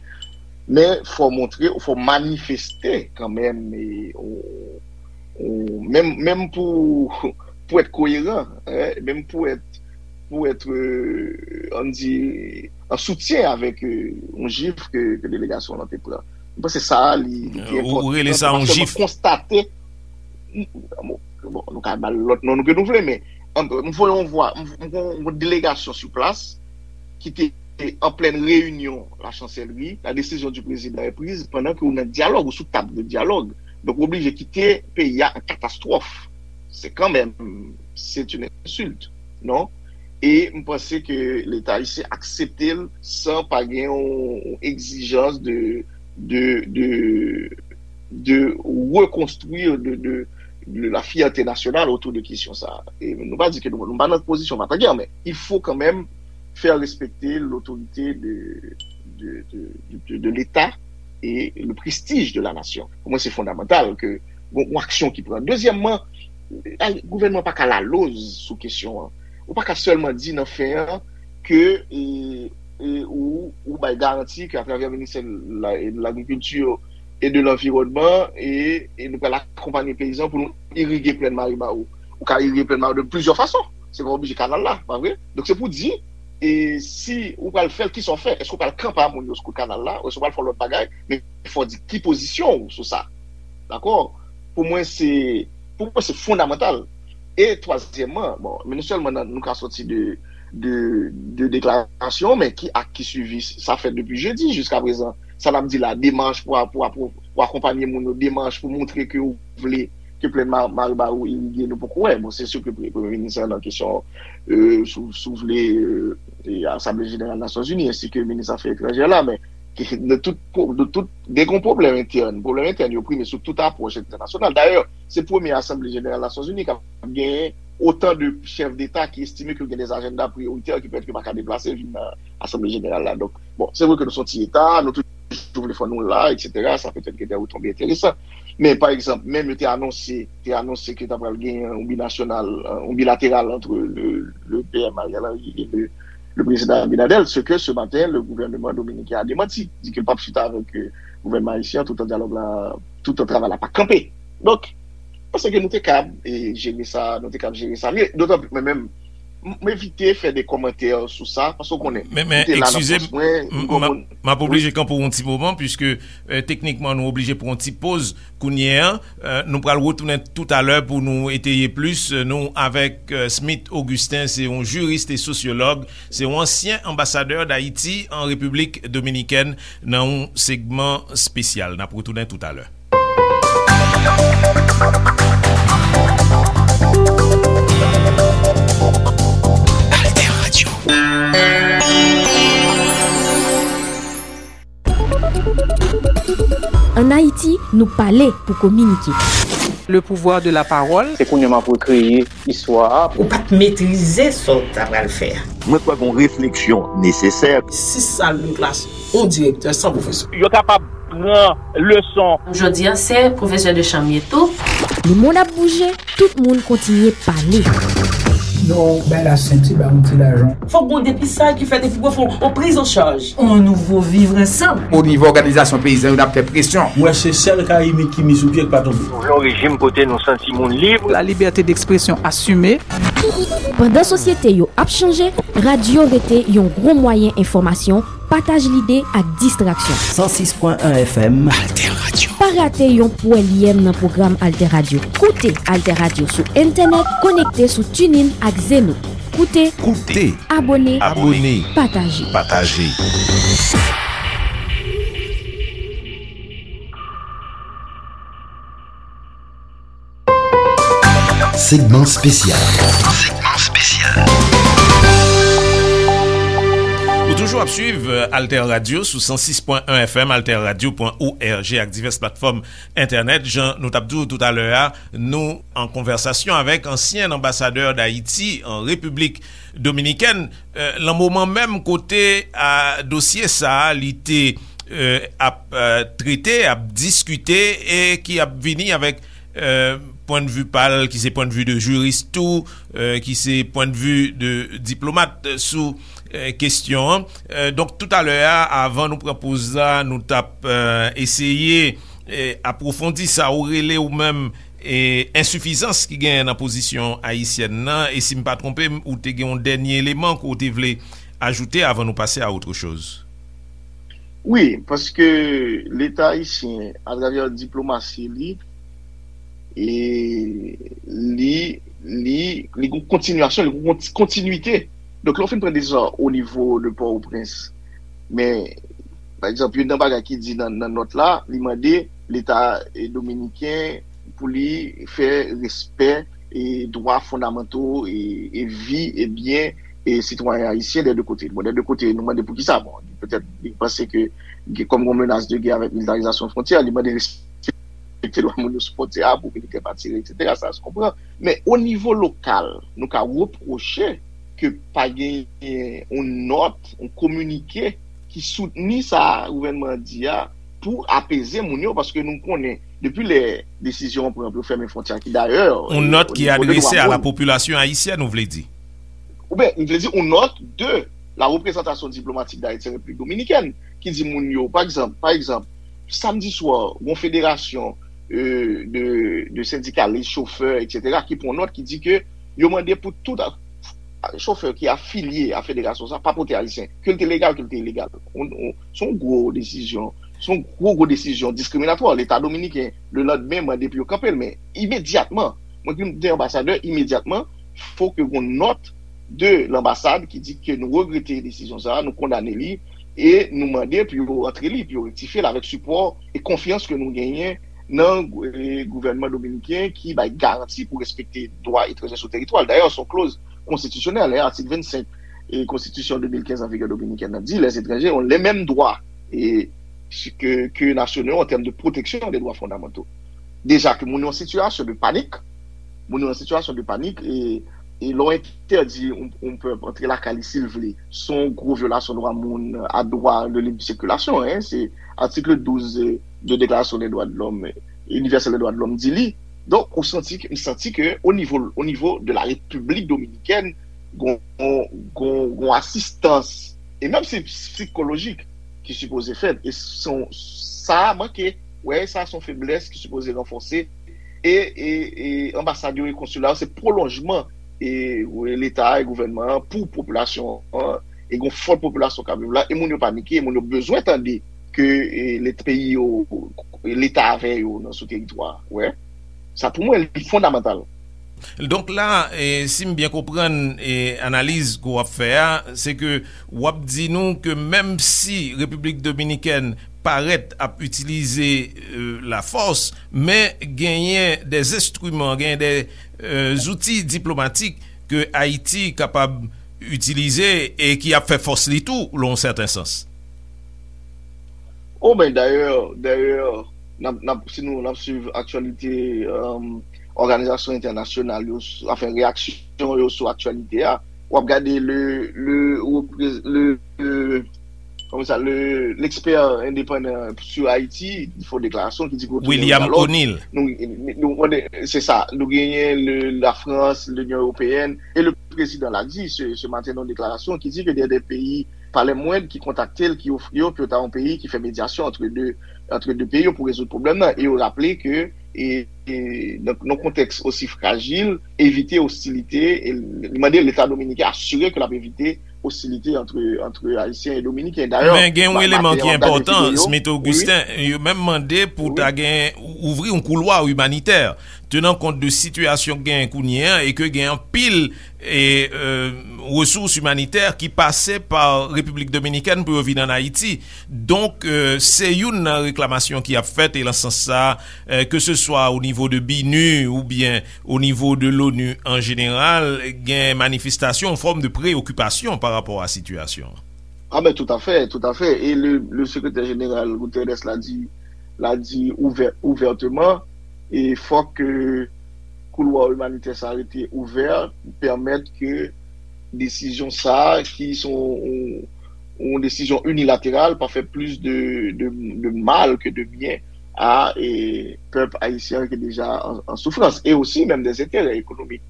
Men fò montre, fò manifeste kanmenm, e, ou, ou, menm, menm pou, pou èt koyeran, eh, menm pou èt, pou èt, euh, ann di, an soutyen avèk euh, yon jif ke, ke delegasyon lan te pran. M panse sa a, li, li te enpòtan. Ou rele sa yon jif? Konstate, bon, nou ka ba l lòt non nou ke nou vle, men m voye yon vwa, m voye yon delegasyon sou plas ki te an plèn reyinyon la chanselri, la décision du président est prise pandan ke ou nan dyalòg, ou sou tab de dyalòg. Donk, ou oblije kite peyi a an katastwòf. Se kanmenm, c'est une insulte, non? E m panse ke Leta ayisyen aksepte l san pa gen yon egzijans de, de, de, de rekonstwi, de, de, de la fierté nationale autour de kesyon sa. E nou pa di ke nou, nou pa nan pozisyon Vatan Gè, men il faut quand même faire respecter l'autorité de, de, de, de, de l'État et le prestige de la nation. Pou mwen, se fondamantal ke yon aksyon ki pran. Dezyèmman, gouvènman pa ka laloz sou kesyon an. Ou pa ka sèlman di nan fen an ke e, e, ou, ou bay garanti ke atravè ministè de lagrikilti e de lanviwònman e, e nou pral akonpanye peyizan pou nou irige plèn Maribawou. Ou ka irige plèn Maribawou de plizyè fason. Se pa oblije kanal la, pa vre? Donk se pou di e si ou pral fè l, kisa w fè? Èske w pral kanpe a moun yo sou kout kanal la? Èske w pral fè yon lòt bagay? Men fò w di ki pozisyon w sou sa. Dakò? Pou mwen, se pou mwen, se fondamantal. E twazyèmman, bon, men non sèlman nou ka soti de, de, de deklarasyon, men ki ak ki swivi sa fèt depi jedi jiska prezan. Sa n ap di la, demach pou, pou, pou akonpanye moun yo, demach pou montre ke ou vle ke plèn Maribawou irige, nou poko wè. Bon, se si ke premye minis lan nan kesyon, euh, si w vle, euh, Asanble Jeneral Nasyonzini, ensi ke minis afè etranjè la, men de tout, de tout, gen yon pwoblèm entèn. Pwoblèm entèn yo prime sou tout apwòch entènasyonal. Dayè, se premye Asanble Jeneral Nasyonzini k ap genyen otan de chèf deta ki estime ke gen de ajanda priyoritè ki pètèt yo pa ka deplase vin nan Asanble Jeneral la. Donk, bon, se vre ke nou se yon ti eta, nou toujou vle fò nou la, etsetera. Sa petèt gen de retonbe enteresan. Men, pa egzanp, menm yo te anonse, te anonse ke ta pral gen yon binasyonal, yon bilateral ant le, le PM Ariel Henry e le, le prezidan Abinader, ce que ce matin, le gouvernement dominicain a démenti, di ke l p ap chita avèk euh, gouvènman ayisyen, tout an dyalòg la, tout an travay la pa kanpe. Donk, m panse ke nou te kab e jere sa, nou te kab jere sa mye. Dotan plis, mwen menm, m evite fè de kòmantè sou sa, paske w konnen, men, men, m te la nan pòs mwen, m, m, m, m ap oblije kanpe w yon ti moman, piske, euh, teknikman, nou oblije pran yon ti poz kounye a. Euh, nou pral retounen toutalè pou nou eteye plis. Euh, nou avèk, euh, Smith Augustin, se yon jiris e sosyològ, se yon ansyen anbasadè Dayiti an Repiblik Dominikèn, nan yon segman espesyal. N ap retounen toutalè. Alter Radio. Ann Ayiti, nou pale pou kominike. Le pouvoir de la parole. Se kounye a m ap rekreye istwa a. Ou pa t metrize sa w ta pral fè a. Mwen kwè gen yon refleksyon nesesè. Sis sal de klas, yon direktè san pwofesè. Yo kapab pran leson. Jodi a, se pwofesè de chanm ye tou. Lemonn ap bouje, tout moun kontinye pale. Non, bay la senti, ba yon ti lajan. Fòk gon depistaj ki fèt epi pou fè yon priz an chaj. On nouvo vivre ensemble. O nivo òganizasyon peyizan yo, n ap fè presyon. Mwen se sèl Kayimit ki mi sou pye k pa tonbe. Nou vle yon rejim kote nou santi moun lib. La liberté d'expression assumée. Pandan sosyete yo ap chanje, radyo rete yon gwo mwayen enfòmasyon, pataj lide ak distraksyon. San sis pwen en F M. Alter Radio. Pa rate yon pwèlyèm nan pwogram Alter Radio. Koute Alter Radio sou entènèt, konekte sou TuneIn ak Zeno. Koute, koute, abòne, abòne, pataje. Pataje. Segman espesyal. Segman espesyal. Ou toujou ap swiv, euh, Alter Radio sou san sis pwen en F M, alter radio pwen org ak divès platfòm entènèt. Jan nou t ap di w toutalè a, nou an konvèsasyon avèk ansyen anbasadè Dayiti an Repiblik Dominikèn, euh, lan moman menm kote a dosye sa a, li te, euh, ap, euh, trete, ap diskite e ki ap vini avèk, euh, pwennvi pa l, ki se pwennvi de jiris tou, euh, ki se pwennvi de diplomat sou, euh, kesyon an. Euh, donk, toutalè a, avan nou pran poz la, nou t ap, euh, eseye, euh, apwofondi sa ou rele ou menm, e ensifizans ki genyen nan pozisyon ayisyèn nan, e si m pa twonpe m, ou te gen yon dènye eleman ke w te vle ajoute avan nou pase a autre chose. Wi, paske Leta ayisyen, atravè diplomasi li, e li, li, li gon kontinyasyon, li gon konti-, kontinwite. Donk, lè w fin pran desizyon o nivo de Pòtoprens, men, pa egzanp, youn nan bagay ki di nan, nan nòt la, li mande Leta, e, dominiken pou li fè respè e dwa fondamanto e, e vi e byen e sitwayen ayisyen dè de kote. Bon, dè de kote, nou mande poukisa. Bon, petèt, li panse ke, ke kòm gon menas de gè avèk militarizasyon fwontyè, li mande respekte dwa moun yo sou fwontyè a pou militè pa tire, etsetera. Sa se konpran. Men o nivo lokal, nou ka repwoche ke pa genyen yon nòt, yon kominike ki soutni sa gouvènman an di a pou apeze moun yo, paske nou konnen, depi lè desizyon an pran pou yo fèmen fwontyè a, ki dayè, yon nòt ki adrese a la popilasyon ayisyèn, ou vle di? Oubyen, m vle di, yon nòt de la représentation diplomatique d'Haïti en République Dominicaine, ki di moun yo, pa egzanp, pa egzanp, samdi swa, yon federasyon, euh, de, de sendikalis, chofè, etsetera, ki pran nòt, ki di ke yo mande pou tout chofè ki afilye a federasyon sa pa pote ayisyen, ke l te legal, ke l te ilegal. On, on, se yon gwo desizyon, se yon gwo, gwo desizyon diskriminatwa. Leta dominiken, le landmen, mande pou yo kanpe l, men imedyatman, mwen ki te anbasadè, imedyatman, fo ke gon nòt de lanbasad ki di ke nou regrete desizyon sa, nou kondane li, e nou mande pou yo rantre li, pou yo rektifye l avèk sipò e konfyans ke nou genyen nan, e, gouvènman dominiken ki bay garanti pou respekte dwa etranjè sou teritwa l. Dayè, se yon kloz konstitisyonèl, e, atik vennsenk e konstitisyon de mil kenz an vigè dominikèn nan di, les étrangers ont les mêmes droits e, ke, ke nasyonal an tèm de pwoteksyon de dwa fondamanto. Deja ke moun yo an sitiyasyon de panik, moun yo an sitiyasyon de panik, e, e lè w entèdi yon, yon pèp antre lakay li si l vle, se yon gwo vyolasyon dwa moun a dwa de lib sikilasyon, en, se atik douz de Deklarasyon de dwa de lòm, inivèsèl de dwa de lòm di li. Donk, ou santi, m santi ke o nivo, o nivo de la Repiblik Dominikèn, gon, gon, gon asistans, e menm si sikolojik, ki sipoze fèt. E se yon, sa manke, wè, sa se yon feblès ki sipoze ranfòse. E, e, e anbasad yo e konsila yo, se pwolonjman e, e Leta e gouvènman an pou popilasyon an, e gen yon fòt popilasyon k ap viv la, e moun yo panike, e moun yo bezwen tande ke e, Leta, peyi yo, Leta avè yo nan sou teritwa. Wè, sa pou mwen, li fondamantal. Donk la, e, si m byen konprann e, analiz ke w ap fè a, se ke w ap di nou ke menm si Repiblik Dominikèn parèt ap itilize e, lafòs, men genyen de enstriman, genyen de e, zouti diplomatik ke Ayiti kapab itilize e ki ap fè fòs li tou, lan yon sèten sans. O, ben, dayè, dayè, n ap, n ap, si nou, n ap swiv aktyalite, um, òganizasyon entènasyonal yo, sou, anfen, reyaksyon yo sou aktyalite a, w ap gade le, le, reprez- le, le, kòman sa, le, lekspè endepandan sou Ayiti, ki fè yon deklarasyon ki di ke retourne William Dialogue. O'Neill. Nou, nou, nou, se sa, nou genyen le, la Frans, Linion Ewopeyèn, e le prezidan la di se, se maten nan yon deklarasyon ki di ke gen de peyi pa lè mwend ki kontakte l, ki ofri yo pou yo ta yon peyi ki fè medyasyon antre de, antre de peyi yo pou rezoud pwoblèm nan. E yo raple ke e, e, nan, nan kontèks osi frajil, evite ostilite, e li mande Leta dominiken asire ke l ap evite ostilite antre, antre Ayisyen e Dominiken. Dayè, Men gen yon ma- eleman maten ki an, m gade enpòtan, videyo. Smith Augustin, yo menm mande pou ta gen ouvri yon koulwa imanitè, tenan kont de sitiyasyon k genyen kounye a e ke gen anpil e, e, resous imanitè ki pase pa Repiblik Dominikèn pou yo vin ann Ayiti. Donk, e, se youn nan reklamasyon ki ap fèt, e lan sans sa, e, ke se swa o nivo de BINUH oubyen o nivo de l'ONU an jeneral, gen manifestasyon, yon fòm de preyokipasyon pa rapò a sitiyasyon an. Ah ben, tout à fait, tout à fait. E le, le sekretè jeneral Guterres la di, la di ouvè, ouvèteman, e fòk ke koulwa imanitè sa rete ouvè, pèmèt ke desizyon sa, ki se yon, yon, yon desizyon inilateral, pa fè plis de, de, de mal ke de byen a e, pèp ayisyen ki deja an, an soufrans, e osi menm de enterè ekonomik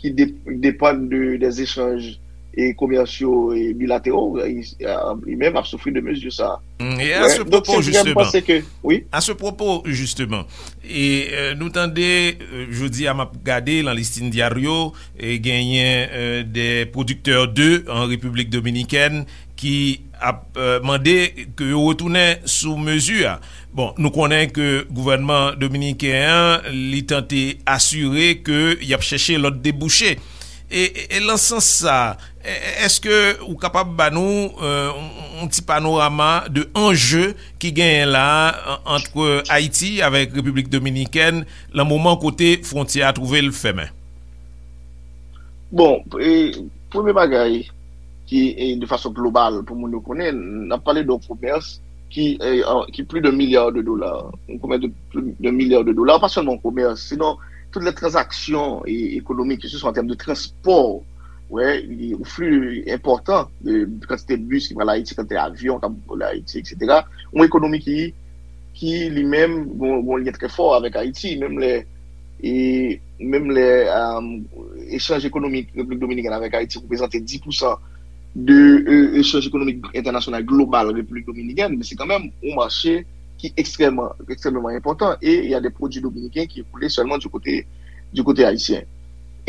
ki de, depann de, de echanj e komèsyal e bilateral, e, e menm ap soufri de mezi sa. Mm, e a ce propos, justement, ke, wi. A ce propos, justement, e, e, nou tande, e, jodi a m ap gade lan Listín Diario, e genyen, e, de pwodiktè de an Repiblik Dominikèn ki ap, e, mande ke yo retounen sou mezi a. Bon, nou konnen ke gouvènman dominiken an, li tante asire ke y ap chèche lòt debouche. E, e, e lan sans sa, e, e, èske ou kapab ba nou, e, yon, yon ti panorama de anje ki genyen la, an, ant Ayiti avèk Repiblik Dominikèn, lan moman kote fwontyè a twouve l fèmen? Bon, e, premye bagay ki, e, de fason global pou moun yo konnen, n ap pale de yon komès ki, e, an, ki plis de milya de dola, yon komès de plis de milya de dola, pa sèlman yon komès, sinon tout lè tranzaksyon e, ekonomik, ke se swa an tèm de transpò, wè, e, yon fli enpòtan de kantite bis ki pral Ayiti, kantite avyon k ap vole Ayiti, etsetera. Yon ekonomi ki, ki li menm gon, gon lyen trè fò avèk Ayiti, menm lè, e, menm lè, um, echanj ekonomik Repiblik Dominikèn avèk Ayiti reprezante dis pousan de, e, echanj ekonomik entènasyonal global Repiblik Dominikèn, men se kanmenm yon mache ki ekstrèmman, ekstrèmman enpòtan, e y a de pwodui dominiken ki ekoule sèlman du kote, du kote ayisyen.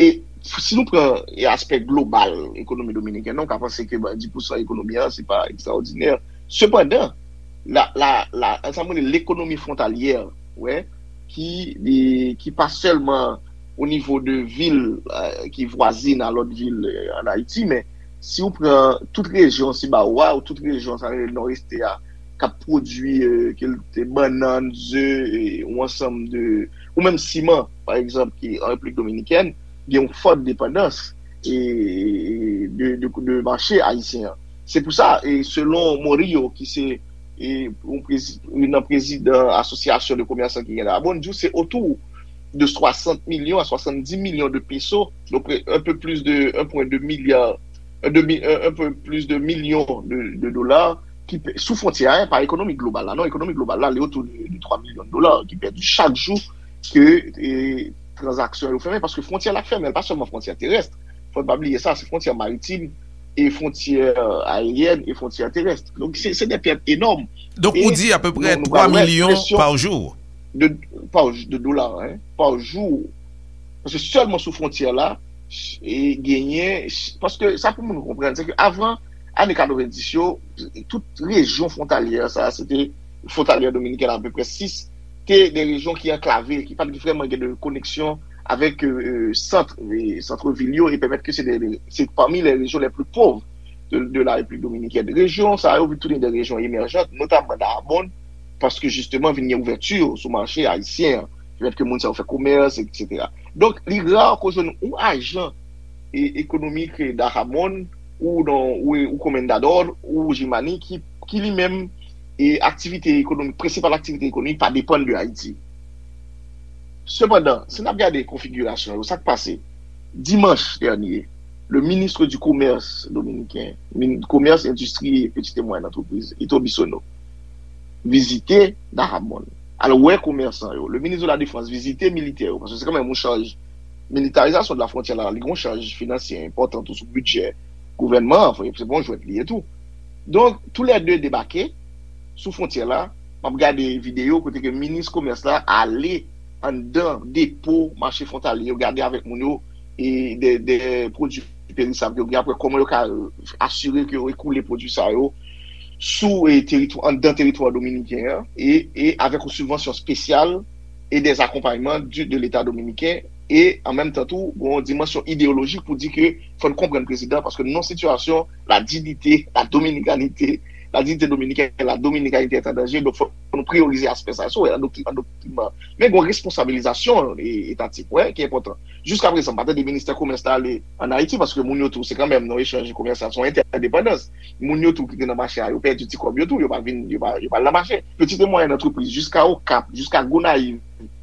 E si nou pran, e, aspè global ekonomi dominikèn, nou ka panse ke, ben, dis pousan ekonomi an, se pa ekstraòdinè. Sepandan, la, la, la, sa m rele lekonomi fwontalyè, wè, ki, e, ki pa sèlman o nivo de vil, e, ki vwazin a lòt vil, e, ann Ayiti, men si w pran tout rejyon Sibawo a, ou tout rejyon, sa rele Nòdès a, k ap pwodui, e, ke l te bannann, ze, e, yon ansanm de, ou menm siman, pa egzanp, ki an Repiblik Dominikèn, gen yon fòt depandans, e, de, de, de mache ayisyen an. Se pou sa, e, selon Morillo, ki se, e, yon prezi-, youn nan prezidan Asosyasyon de Komèsan ki gen la, bon, di w se otou de swasant milyon a swasanndis milyon de peso, donk, un peu plus de un point deux milliard, un demi, un, un peu plus de milyon de, de dola ki pe-, sou fwontyè a, pa ekonomi global la, non, ekonomi global la, li otou de, de twa milyon de dola ki pèdi chak jou ke, e, tranzaksyon yo fèmen, paske fwontyè la fèmen, pa sèlman fwontyè terès, fò n pa bliye sa, se fwontyè maritim, e fwontyè aeryèn, e fwontyè terès. Donk, se, se de pèt enòm. Donk, ou di apeprè twa milyon pa jou? De, pa, de dola, hein, pa jou. Paske sèlman sou fwontyè la, e genyen, paske sa pou moun konprann, se ke avan ane katrevenndis yo, tout rejyon fwontalyè sa, se te fwontalyè dominiken apeprè sis, te de rejyon ki anklave, ki pa t vrèman gen de koneksyon avèk sant, sant vil yo, e pèmèt ke se de, se pami les régions les plus pauvres de, de la République dominicaine. Rejyon sa yo vin tounen de rejyon emèjant, notamman Dajabón, paske jisteman vin gen ouvèti sou mache ayisyen an, pèmèt ke moun sa yo fè komès, etsetera. Donk, li ra ke w jwenn yon ajan e, ekonomik Dajabón ou, ou, ou Comendador ou Jimani ki, ki li menm e aktivite ekonomik, prensipal aktivite ekonomik pa depann de Ayiti. Sepandan, si n ap gade konfigirasyon yo, sa k pase? Dimanch dènye, le ministre du Commerce dominiken, min, Commerce, Industrie et Petites et Moyennes Entreprises, Ito Bisono, vizite Dajabón. Al wè komèsan yo. Le ministre de la Défense vizite militè yo, paske se kanmenm yon chaj, militarizasyon de la frontière la, li gen yon chaj finansye enpòtan tou sou bidjè gouvènman an, se pa yon jwèt li ye tou. Donk, toulède debake sou fwontyè la. M ap gade videyo kote ke minis komès la ale anndan depo mache fwontalye yo, gade avèk moun yo e de, de pwodui perisab yo gen, apre kòman yo ka asire ke yo ekoule pwodui sa yo sou e, teritwa, anndan teritwa dominiken an e, e avèk yon sibvansyon espesyal e des accompagnements du, de l'État dominicain e an menm tan tou, gen yon dimansyon ideyolojik pou di ke fò n konprann prezidan, paske nan yon sitiyasyon, la dignité, la dominicanité, la dignité dominicaine, la dominicanité est en danger, donk fò nou priyorize aspè sa. Sa w wè nan dokiman, dokiman. Men gen yon responsabilizasyon e, etatik, wè, ki enpòtan. Jiska prezan, m pa tande ministè komès la ale ann Ayiti, paske moun yo tou, se kanmenm nan echanj komèsyal, se yon entèdepandans. Moun yo tou ki te nan mache a, yo pèdi ti kòb yo tou, yo pa vin, yo pa, yo pa al nan mache. Petit et moyenne entreprise, jiska Okap, jiska Gonayiv,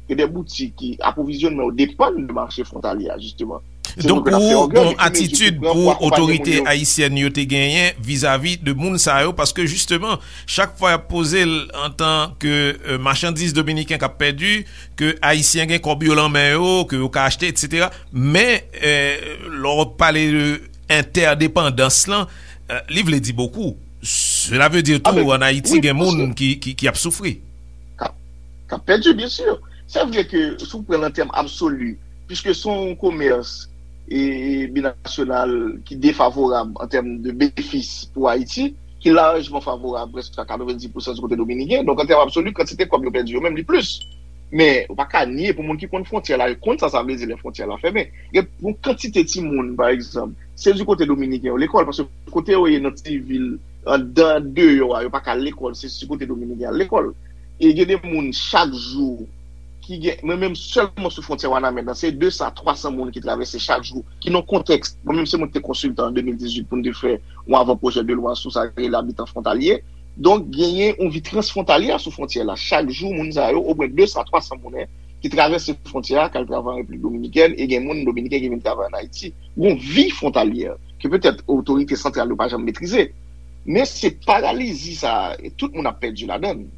gen de boutik ki apwovizyonnman yo depann de mache fwontalye a, jisteman. Donk, ou gon atitid pou otorite ayisyèn yo te genyen vizavi de moun sa yo, paske jisteman, chak fwa y ap poze l antanke, euh, machandiz dominiken k ap pèdi, ke ayisyen gen kòb yo lan men yo, ke yo ka achte, etsetera. Men, euh, lè w pale de entèdepandans lan, euh, li vle di bokou. Sela vle di tou, ann Ayiti, gen moun ki, ki, ki ap soufri. K ap, k ap pèdi, byen si. Se vre ke si w pran l an tèm absoli, piske se yon komès e, e binasyonal ki defavorab an tèm de benefis pou Ayiti, ki lajman favorab prèske a katrevenndis pousan di kote dominiken. Donk, an tèm absoli, kantite kòb yo pèdi yo menm, li plis. Men, ou pa ka nye pou moun ki konn fwontyè la, yo konn sa sa vle di lè fwontyè la fèmen. Gen yon kantite timoun, pa egzanp, se di kote dominiken yo lekòl, paske kote yo ye nan ti vil, anndan deyò a, yo pa ka al lekòl, se di kote dominiken al lekòl. E gen de moun chak jou ki gen, mwen menm sèlman sou fwontyè Wanament lan, se de san a twa san moun ki travèse chak jou, ki nan kontèks, mwen menm se mwen ki te konsiltan an de mil dizuit pou n te fè yon avan pwojè de lwa sou sa ki rele abitan fwontalye. Donk, genyen yon vi transfwontalye sou fwontyè la. Chak jou, moun sa yo, omwen de san a twa san moun, en, ki travèse fwontyè a, k al travay an Repiblik Dominikèn, e gen moun dominiken ki vin travay ann Ayiti. Yon vi fwontalyè ke petèt otorite santral yo pa janm metrize. Men se paralizi sa a, e tout moun ap pèdi ladan l.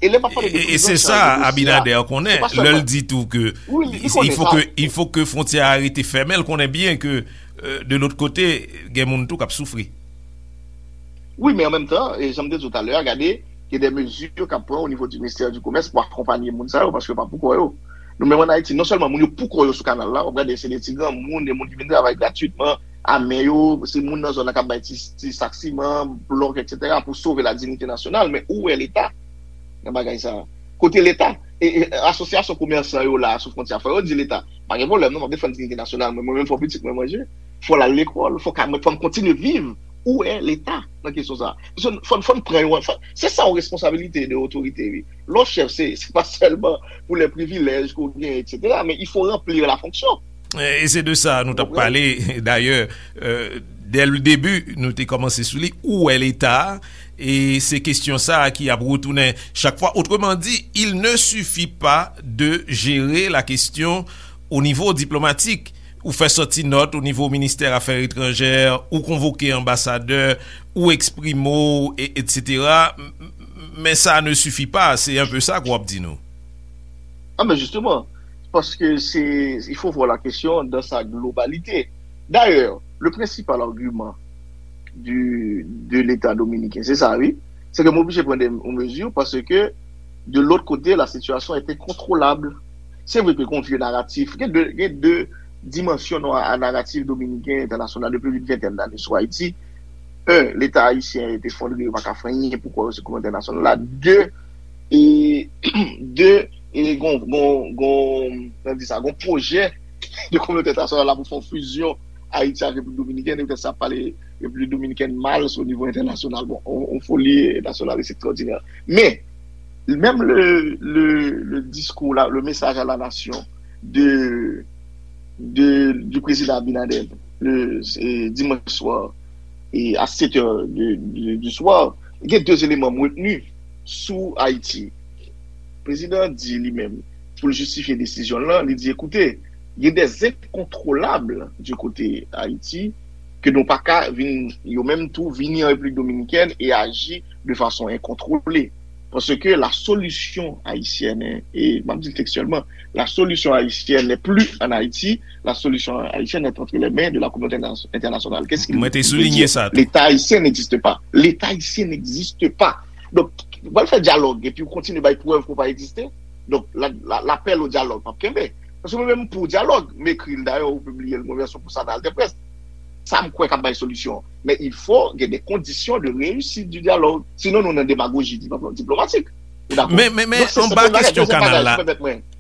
E lè m ap pale de prizon, e se sa Abinader konnen, lè l di tou ke il faut que, il faut que fwontyè a rete fèmen, l konnen byen ke, euh, de lòt kote, gen moun tou k ap soufri. Wi, men an menm tan, e jan m te di w talè a, gade, gen de mezi k ap pran o nivo di ministè di komès pou akonpanye moun sa yo, paske yo pa pou kò yo. Nou menm ann Ayiti, non sèlman moun yo pou kò yo sou kanal la, w ap gade se de ti granmoun, de moun ki vin travay gratwitman, a men yo, se moun nan zòn nan k ap bay ti, ti sak siman, blòk, etsetera, pou sove la dignité nationale, men ou wè Leta nan bagay sa a? Kote Leta? E, e asosyasyon komèsan yo la sou fwontyè a, fò yo di Leta, pa gen pwoblèm non, m ap defann dignité nasyonal mwen, mwen menm fò pitit mwen manje, fò l al lekòl, fò ka, fò m kontinye viv. Ou wè Leta nan kesyon sa a? Paske fò, fò n pran yon, fò, se sa yon responsabilite de otorite, wi. Lè w chèf, se, se pa sèlman pou lè privilèj ke w genyen, etsetera, men il faut remplir la fonction. E se de sa nou t ap pale, dayè, euh, dès le début, nou te kòmanse sou li, ou wè Leta, e se kesyon sa a ki ap retounen chak fwa. Autrement dit, il ne suffit pas de gérer la question au niveau diplomatique. Ou fè sòti nòt o nivo ministè afè etranjè, ou konvoke anbasadè, ou eksprime w, e, etsetera. M, m, men sa ne suffit pas, se un peu sa ke w ap di nou. Ah, mais justement, parce que c'est, il faut voir la question dans sa globalité. D'ailleurs, le principal argument du, de l'État dominicain, se sa, wi, se ke m oblije pran de, yon mezi, paske de lòt kote, la sitiyasyon est incontrôlable. Se vre ke gen yon vye naratif, gen de, gen de dimansyon nan naratif dominiken entènasyonal depi plis ventèn lane sou Ayiti. Un, Leta ayisyen efondre, yo pa ka fè anyen pou kwè yo se kominote entènasyonal la. De, e, de, e gon, gon, gon, nan di sa, gon pwojè de kominote entènasyonal la pou fè yon fizyon Ayiti ak Repiblik Dominikèn, e poutèt sa ap pale Repiblik Dominikèn mal sou nivo entènasyonal. Bon, on, on foli nasyonal, c'est extraordinaire. Men, menm le, le, le discours, la, le message à la nation de, de, du président Abinader, le, e, dimanch swa, e, à sept heures de, de, du soir, gen de eleman m retni sou Ayiti. Prezidan an di li menm, pou l jistifye desizyon l lan, li di, écoutez, il y a des incontrôlables du côté Haïti, ke nou pa ka vin, yo menm tou, vini an Repiblik Dominikèn e aji de fason enkontwole. Paske la solution haïtienne, e m ap di l tekstyèlman, la solution haïtienne n'est plus en Haïti, la solution haïtienne est entre les mains de la communauté interna- internationale. Qu'est-ce qu'il veut dire? Mwen te soulinye sa tou. L'État haïtien n'existe pas. L'État haïtien n'existe pas. Donk, w pral fè dyalòg epi w kontinye bay prèv ke w pa egziste. Donk, la, la, lapèl o dyalòg p ap kenbe. Paske mwen menm pou dyalòg, m ekri l dayè, ou pibliye l, mwen vèsyon pou sa nan Altèprès. Sa m kwè k ap bay solisyon. Men il faut gen de kondisyon de réussite du dialogue. Sinon, nou nan demagoji diplomatik. Ou dakò? Men, men, men, anba kesyon kanal la,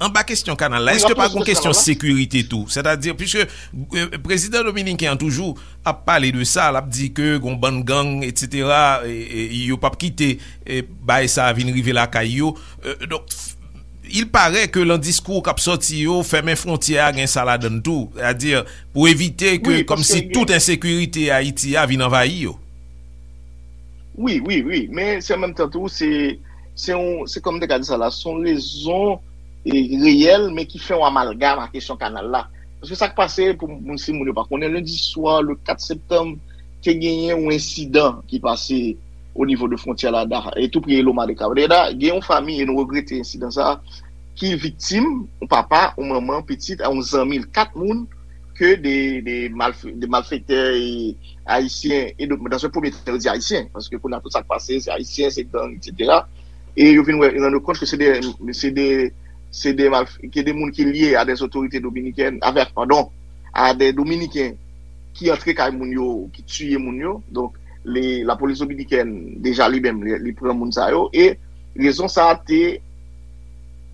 anba kesyon kanal la, èske pa gon kesyon sekirite tou? Sètadi, piske, e, prezidan dominiken an toujou ap pale de sa, l ap di ke gon bann gang, etsetera, e, e, yo p ap kite, e, bagay sa a vin rive lakay yo. E, donk, il paraît que nan diskou k ap sòti yo, fèmen fwontyè a gen sa ladan l tou. Sètadi, pou evite ke, kòmsi tout ensekirite Ayiti a vin anvayi yo. Wi, wi, wi. Men se an menm tan tou, se, se yon, se kòm m te ka di sa la, se yon rezon, e, reyèl, men ki fè yon amalgam a kesyon kanal la. Paske sa k pase, pou moun, si moun yo pa konnen, lendi swa, le kat septanm, te genyen yon ensidan ki pase o nivo de fwontyè la, e tou pre Loma de Cabrera, gen yon fanmi, e nou regrete ensidan sa, ki viktim, yon papa, yon manman, pitit, a yon zanmi l, kat moun, ke de, de, malf, de malfektè e ayisyen, e de, dans un premier temps, yo di ayisyen, paske kounye a tout sa k pase, se ayisyen, se gang, etsetera. E yo vin wè, rann yo kont ke se de, se de, se de malf, ke de moun ki lye a des autorités dominicaines, avèk, padon, a de Dominiken ki antre kay moun yo, ki tiye moun yo. Donk, le, lapolis dominikèn, deja li menm, li, li pran moun sa yo. E rezon sa a te,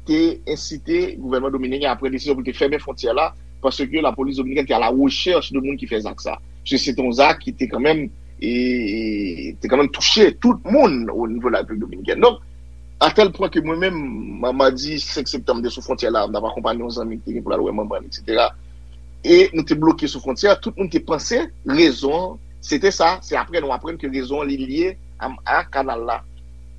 te ensite gouvènman dominiken a pran desizyon pou l te fèmen fwontyè la, paske lapolis dominikèn te a la rechèch de moun ki fè zak sa. Se, se te yon zak ki te kanmenm, e, e, te kanmenm touche tout moun o nivo de la Repiblik Dominikèn. Donk, a tèl pwen ke mwen menm, ma-, madi senk septanm, m te sou fwontyè la, m t ap akonpanye yon zanmi ki te gen pou l al wè manman l, etsetera. E nou te bloke sou fwontyè, tout moun te panse rezon an, se te sa, se apre nou aprann ke rezon an li lye a, a kanal la.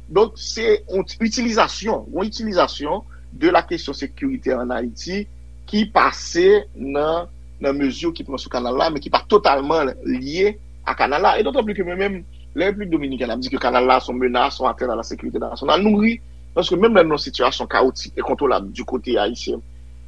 Donk, se yon itilizasyon, yon itilizasyon de la kesyon sekirite an Ayiti ki pase nan, nan mezi ki pran sou kanal la, men ki pa totalman lye a kanal la. E dotan pli ke mwen menm, lè Repiblik Dominikèn ap di ke kanal la se yon menas, yon atènt a la sekirite nasyonal, nou ri, paske menm lè nou nan sitiyasyon kawotik, enkontwolab du kote ayisyen,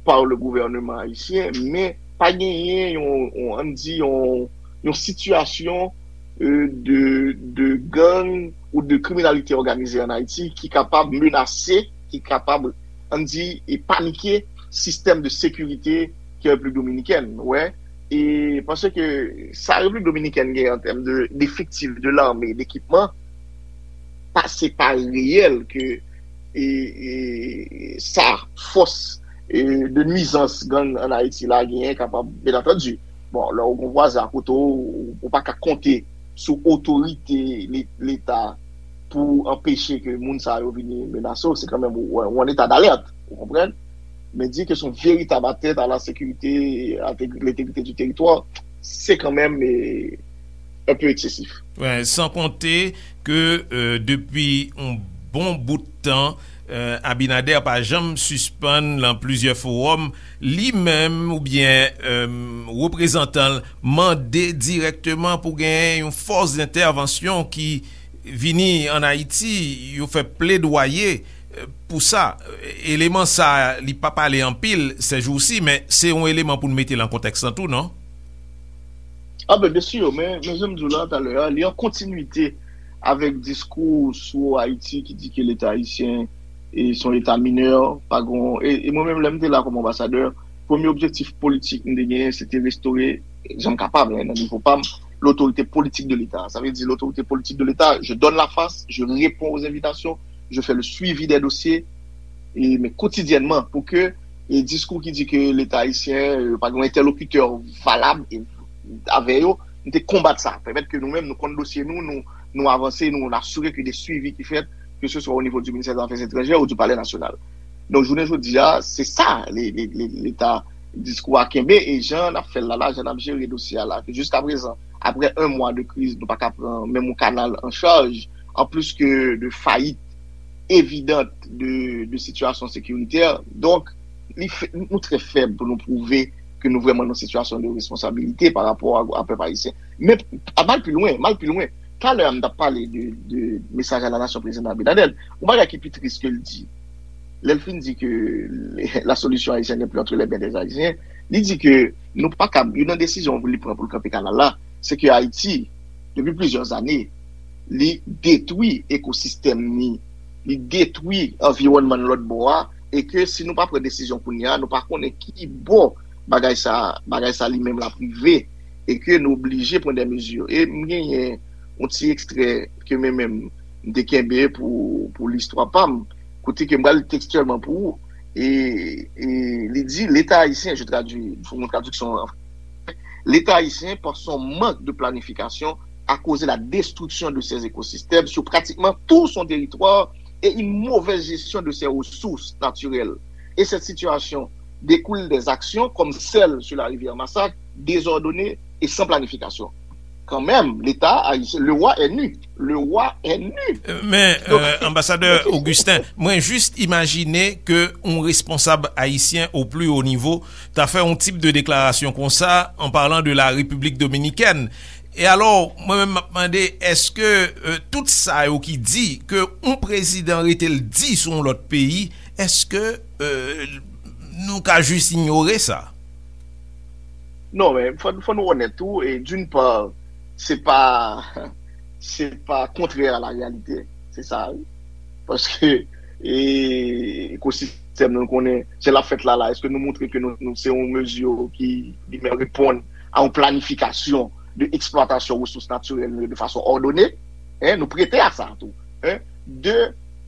par le gouvernement haïtien, men pa genyen yon, yon, ann di, yon, yon sitiyasyon, e, de, de gang ou de kriminalite òganize an Ayiti ki kapab menase, ki kapab, ann di, e panike sistèm de sekirite ki Repiblik Dominikèn, wè. E paske sa Repiblik Dominikèn gen an tèm de, d'efektif, de lame, dekipman, pa, se pa reyèl ke, e, e, sa, fòs, e, de nwizans gang an Ayiti la genyen kapab, byen antandi. Bon, lè w gon vwazen akote w, ou pa ka konte sou otorite le-, Leta pou anpeche ke moun sa yo vini menase w, se kanmenm ou, ou an eta dalèt, ou konprann? Men di ke se yon veritab atènt a la sekirite, a te-, lentegrite di teritwa, se kanmenm, e, un peu eksesif. Wi, san konte ke, e, depi yon bon bout tan, e, Abinader pa janm sispann nan plizyè fowòm, li menm oubyen, e, reprezantan l mande dirèkteman pou genyen yon fòs dentèvansyon ki vini ann Ayiti, yo fè pledwaye, e, pou sa. Eleman sa, li pa pale anpil sèjousi, men se yon eleman pou n mete l an kontèks lan tou, non? A ben, byensi, men, men jan m di w la talè a, li an kontinwite avèk diskou sou Ayiti ki di ke Leta ayisyen, e, se yon leta minè, pa gon, e, e mwen menm, lè m te la kòm anbasadè, Premye objektif politik m te genyen, se te restore, jan m kapab, hein, nan nivo pa m, l'autorité politique de l'État. Sa vle di, l'autorité politique de l'État, je donne la face, je réponds aux invitations, je fais le suivi des dossiers, e, men kotidyènman, pou ke, e, diskou ki di ke Leta ayisyen, e, pa gen yon entèlokitè valab, e, avè yo, m te konbat sa. Pèmèt ke nou menm, nou konn dosye nou, nou, nou avanse, nou, nou asire ke de swivi ki fèt, ke se swa o nivo di ministè zafè etranjè ou di palè nasyonal. Donk, jounen jodi a, se sa, le, le, le, Leta diskou a kenbe, e jan n ap fè l la, la, jan n ap jere dosye a la, ke jiska prezan, aprè un mwa de kriz, nou pa ka pran menm yon kanal an chaj, an plis ke de fayit evidant de, de sitiyasyon sekiritè. Donk, li fè, nou trè fèb pou nou pwouve ke nou vrèman nan sitiyasyon de responsabilite pa rapò a, a pèp ayisyen. Men, a m al pi lwen, m al pi lwen. Talè a, m t ap pale de, de mesaj a la nasyon prezidan Abinader. Yon bagay ki pi tris ke l di, lè l fin di ke la solution haïtienne n'est plus entre les mains des Haïtiens, li di ke nou pa kab, youn nan desizyon pou li pran pou l kanpe kanal la, se ke Ayiti, depi plizyè zane, li detwi ekosistèm li, li detwi anviwònman l lòt bò a, e ke si nou pa pran desizyon kounye a, nou pa konnen ki bò bagay sa, bagay sa li menm l ap rive, e ke nou oblije pran de mezi. E m genyen yon ti ekstrè ke mwen menm m te kenbe pou, pou listwa pa m, kote ke m pral li tekstyèlman pou ou. E, e li di, L'État haïtien, je traduis, fè yon tradiksyon an fransè, L'État haïtien, par son manque de planification, a causé la destruction de ses écosystèmes sur pratiquement tout son territoire et une mauvaise gestion de ses ressources naturelles. Et cette situation découle des actions comme celle sur la rivière Masak, désordonnées et sans planification. Quand même, l'État haïtien, le roi est nu. Le roi est nu. Men, euh, anbasadè Augustin, mwen jis imajine ke yon responsab ayisyen o pli wo nivo ta fè yon tip de deklarasyon konsa an palan de la Repiblik Dominikèn. E alò, mwen menm m ap mande, èske euh, tout sa yo ki di ke yon prezidan rete l di sou yon lòt peyi, èske euh, nou ka jis inyore sa? Non, men fò, fò nou onèt tou, e d'une part, se pa, se pa kontrè a la réalité, se sa, wi. Paske e, ekosistèm nou konnen, jan l ap fèt la, la, èske nou montre ke nou, nou se yon mezi ki li menm reponn a yon planifikasyon de eksplwatasyon resous natirèl nou yo de fason òdone? Hein, nou prete a sa tou. Hein? De,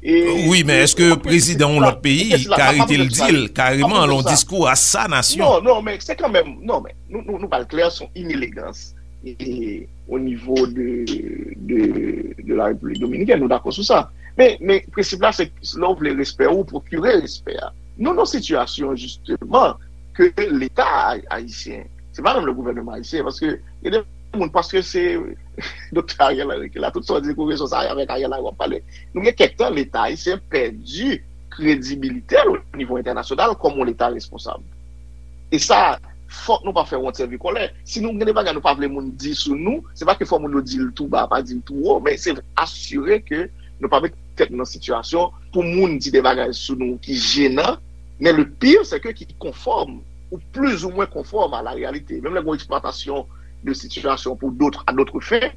e, Wi, men èske prezidan yon lòt peyi ka rete l di l kareman lan diskou a sa nasyon? Non, non, men se kanmenm, non, men nou, nou, nou pral klè, se yon inelegans e, o nivo de, de, de la Repiblik Dominikèn, nou dakò sou sa. Men, men prensip la, se lè w vle respè ou, pwokire respè a. Nou nan sitiyasyon, jisteman, ke Leta ay- ayisyen, se pa menm le gouvènman ayisyen, paske gen de moun, paske se Doktè Ariel Henry ki la, tout sa w di kou rezon sa avèk Ariel Henry w ap pale. Nou gen kèk tan, Leta ayisyen pèdi kredibilite l o nivo entènasyonal kòm yon Leta responsab. E sa, fòk nou pa fè wont sèvi kòlè. Si nou gen de bagay nou pa vle moun di sou nou, se pa ke fò moun yo di l tou ba, pa di l tou wo, men se asire ke nou pa met tèt nou nan sitiyasyon pou moun di de bagay sou nou ki jenan, men le pire, se ke ki konfòm ou plizoumwen konfòm a la réalité. Menm lè gen eksplwatasyon de sitiyasyon pou d'autres, à d'autres fins,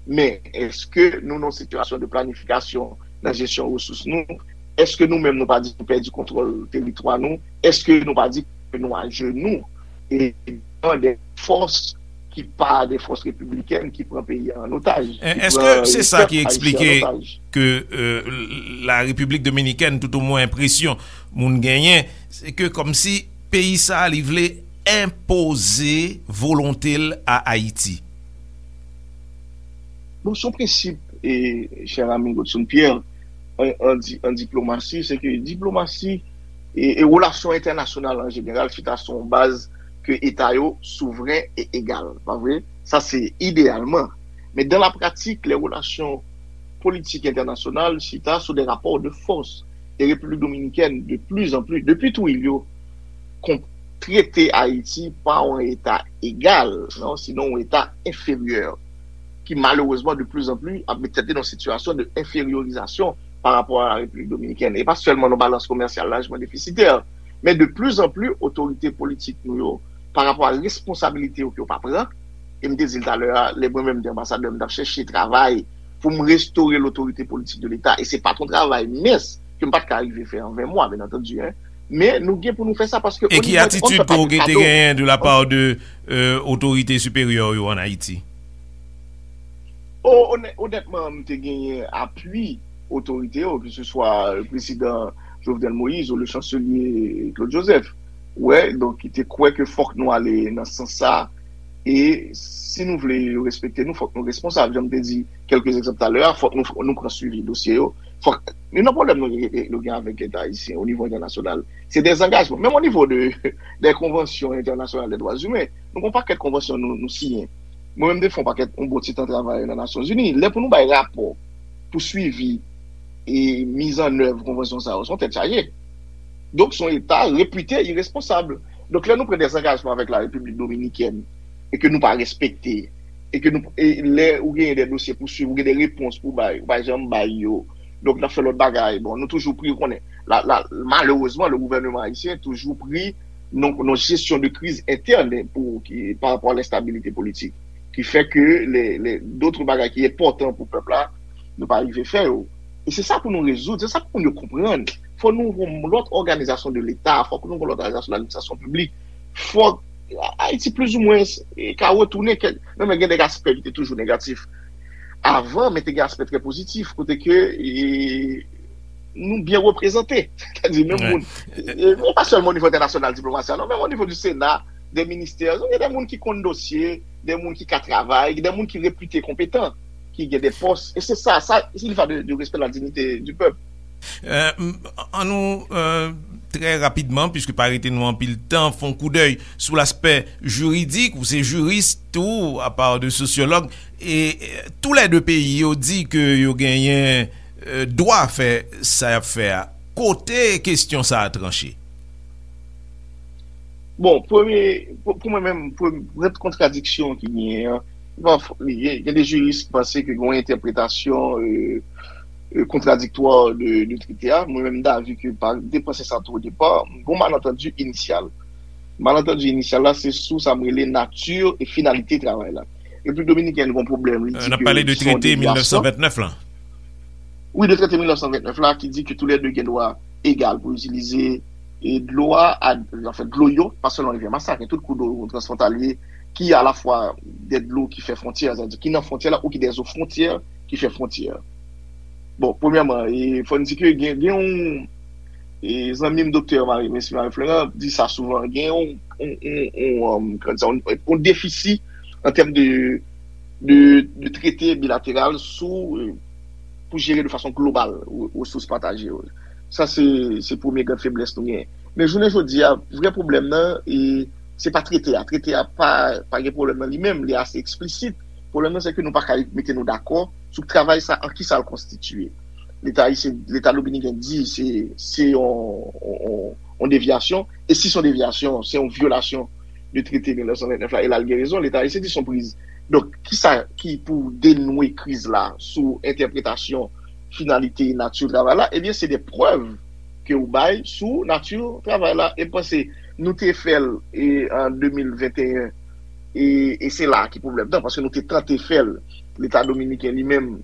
men èske nou nan sitiyasyon de planifikasyon nan jesyon resous nou? Èske nou menm nou pa di nou pèdi kontwòl teritwa nou? Èske nou pa di ke nou ajenou e devan de fòs ki pa de fòs repiblikèn ki pran peyi a an otaj? Èske se sa ki eksplike ke euh, la Repiblik Dominikèn, tout omwen enpresyon moun genyen, se ke kòmsi peyi sa a li vle enpoze volonte l a Ayiti? Bon, se yon prensip, e, chè ami Godson Pierre, an, an, di- an diplomasi, se ke diplomasi e, e relasyon entènasyonal an jeneral chita sou yon baz ke eta yo souvren e egal, pa vre? Sa se ideyalman. Men dan la pratik, lè relasyon politik entènasyonal chita sou de rapò de fòs. E Repiblik Dominikèn, de pli an pli, depi Trujillo, kon- trete Ayiti pa yon eta egal, non, sinon yon eta enferyè, ki malerezman de pli an pli ap met tèt li nan sitiyasyon de enferyorizasyon pa rapò a la Repiblik Dominikèn. E pa sèlman nan balans komèsyal lajman defisitè, men de pli an pli otorite politik nou yo, pa rapò a responsabilite yo ke yo pa pran, e m te di l talè a, lè mwen menm m te anbasadè, m t ap chèche travay pou m restore lotorite politik de Leta, e se pa t yon travay mens ke m pa t ka rive fè an ven mwa, byen antandi, en. Men nou gen pou nou fè sa paske e ki atitid ke w te genyen de la part de euh, otorite siperyè yo an Ayiti? O, onè- onètman, m te genyen apui otorite yo, ke se swa prezidan Jovenel Moïse ou le chanselye Claude Joseph. Wè, donk, ki te kwè ke fòk nou ale nan sans sa. E si nou vle yo respekte nou, fòk nou responsab. Jan m te di kèlke egzanp talè a, fòk nou, nou pran swivi dosye yo. Fòk, youn nan pwoblèm nou, nou gen avèk Leta ayisyen o nivo entènasyonal, se dezangajman. Menm o nivo de, de konvansyon entènasyonal de dwa imen, nou gen yon pakèt konvansyon nou, nou siyen. Mwen menm, m te fè yon pakèt, yon bon ti tan travay nan Nasyonzini. Lè pou nou bay rapò pou swivi e mizannèv konvansyon sa yo, se yon tèt chaje. Donk, se yon Leta repite iresponsab. Donk, lè nou pran dezangajman avèk la Repiblik Dominikèn e ke nou pa respekte, e ke nou, e lè ou genyen de dosye pou swiv, ou gen de repons pou bay, ou pa janm bay yo. Donk, n ap fè lòt bagay. Bon, nou toujou pri, ou konnen. La, la, malerezman, le gouvènman ayisyen toujou pri nan, nan jesyon de kriz entèn pou, ki, pa rapò a lenstabilite politik. Ki fè ke le, le, dòt bagay ki enpòtan pou pèp la, nou pa rive fè yo. E se sa pou nou rezoud, se sa pou moun yo konprann. Fò nou yon lòt òganizasyon de Leta, fò nou yon lòt òganizasyon de ladministrasyon piblik. Fò Ayiti, plizoumwen, e, ka retounen kèk, non, men gen de aspè ki te toujou negatif avan, men te gen aspè trè pozitif, kote ke e, nou byen reprezante. Sètadi, menm moun. E, e pa sèlman o nivo entènasyonal, diplomasi a, non, menm o nivo di Sena, de ministè, gen de moun ki konn dosye, de moun ki ka travay, de moun ki repite konpetan, ki gen de pòs. E se sa, sa, il va de, de respect la dignité du peuple. Euh, m- an nou euh, trè rapidman, puiske pa rete nou anpil tan, fè yon koudèy sou laspè jiridik. Ou se jiris tou, apa de sosyològ. E euh, tou lè de peyi yo di ke yo genyen euh, dwa fè sa y ap fè a. Kote kesyon sa a tranche? Bon, premye, pou, pou mwen menm, pou, pou kontradiksyon ki genyen an, bon, gen, gen de jiris ki panse ke gen yon entèpretasyon euh, euh, kontradiktwa de, de trete a. Mwen menm, m davi ke pa depanse sa tou o depa, gen yon malantandi inisyal. Malantandi inisyal la, se sou sa m rele nati e finalite travay la. Repiblik Dominikèn gen yon pwoblèm, li di ke se yon devyasyon. N ap pale de trete mil nèf san vennèf lan. Wi, de trete mil nèf san vennèf la, ki di ke toulède gen dwa egal pou itilize e dlo a, a, anfen, dlo yo, pa sèlman Rivyè Masak, men tout kou dlo transfwontalye ki alafwa de dlo ki fè fwontyè, sètadi ki nan fwontyè la ou ki de zo fwontyè ki fè fwontyè. Bon, premyèman, e, fò n di ke gen, gen yon e, zanmi m, doktè Marie, mesye Marie Florent, di sa souvan, gen yon, yon, yon, yon, um, kòman di sa, yon, yon defisi an tèm de, de, de trete bilateral sou, e, pou jere de fason global re- resous pataje yo. Sa se, se premye gran feblès nou gen. Men jounen jodi a, vrè pwoblèm nan, e, se pa trete a. Trete a pa, pa gen pwoblèm nan li menm, li ase eksplisit. Pwoblèm nan, se ke nou pa ka mete nou dakò sou travay sa, an ki sa l konstitiye. Leta ayisyen, Leta dominiken di se, se yon, yon, yon devyasyon. E si se yon devyasyon, se yon vyolasyon de trete mil nèf san vennèf la. E la, l gen rezon. Leta ayisyen di se yon priz. Donk, ki sa ki pou denwe kriz la sou entèpretasyon finalite e nati travay la? Ebyen, se de prèv ke w bay sou nati travay la. E m panse nou te fè l e, an de mil venteyen. E, e se la ki pwoblèm nan, paske nou te tante fè l. Leta dominiken li menm,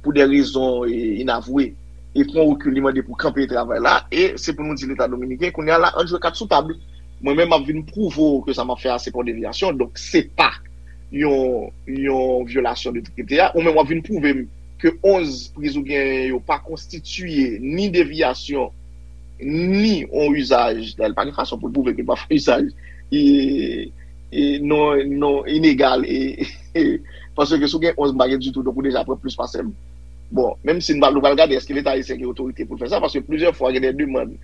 pou de rezon e, inavwe, e pran rekil, li mande pou kanpe travay la. E se pou nou di Leta dominiken, kounye a la, ann jwe kat sou tab. Mwen menm, m ap vin pwouve w ke sa m ap fè a, se pa yon devyasyon. Donk, se pa yon, yon vyolasyon de trete a. Ou menm, w ap vin pwouve m ke onz priz ou genyen yo pa konstitiye ni devyasyon, ni yon izaj. Dayè, pa gen fason pou l pwouve ke l pa fè izaj e, e non, non inegal. E, e, paske si w gen onz, m pa gen ditou, donk ou deja pran plis pase m. Bon, menm si n pa, nou pral gade èske Leta ayisyen gen otorite pou l fè sa, paske plizyè fwa gen de demann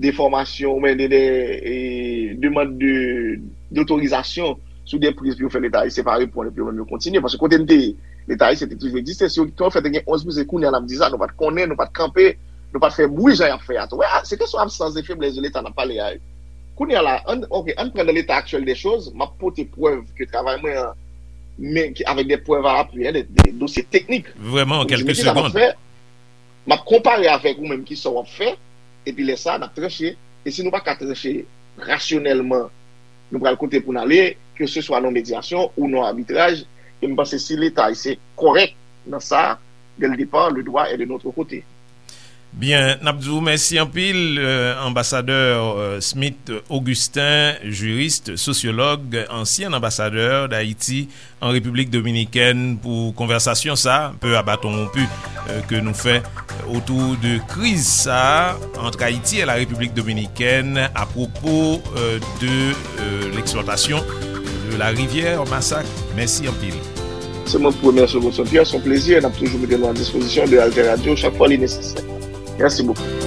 de fòmasyon, oubyen de, de e, demann de, dotorizasyon sou de priz pou yo fè Leta ayisyen pa reponn, epi yo menm yo kontinye. Paske kote n te ye, Leta ayisyen te toujou egziste. Si yo, kòman fè te gen onz priz, se kounye a n ap di sa, nou pa t konnen, nou pa t kanpe, nou pa t fè bri jan y ap fè a tou. Wè, se kesyon absans de feblès de Leta n ap pale a. Kounye a la, ann, ok, ann pran nan leta aktyèl de choz, m ap pote prèv ke travay mwen an, men ki, avèk de prèv a apui, en, de, de dosye teknik. Vrèman, an kèlke segonn. M ap konpare avèk ou menm ki sa w ap fè, epi lè sa a, n ap tranche. E si nou pa ka tranche rasyonèlman, nou pral kote pou n ale, ke se swa nan medyasyon ou nan abitraj, e m panse si Leta ayisyen kòrèk nan sa, dès le départ, le droit est de notre côté. Byen, n ap di w mèsi anpil, euh, anbasadè, euh, Smith Augustin, jurist, sosyològ, ansyen anbasadè Dayiti an Repiblik Dominikèn, pou konvèsasyon sa, peu à bâton rompu, euh, ke nou fè otou de kriz sa ant Ayiti e la Repiblik Dominikèn apwopo, euh, de, euh, l'exploitation de la rivière Massac. Mèsi anpil. Se mwen ki remèsye w, Godson Pierre. Se yon plezi. N ap toujou mete nou a dispozisyon de Alter Radio chak fwa li nesesè. Mèsi bokou.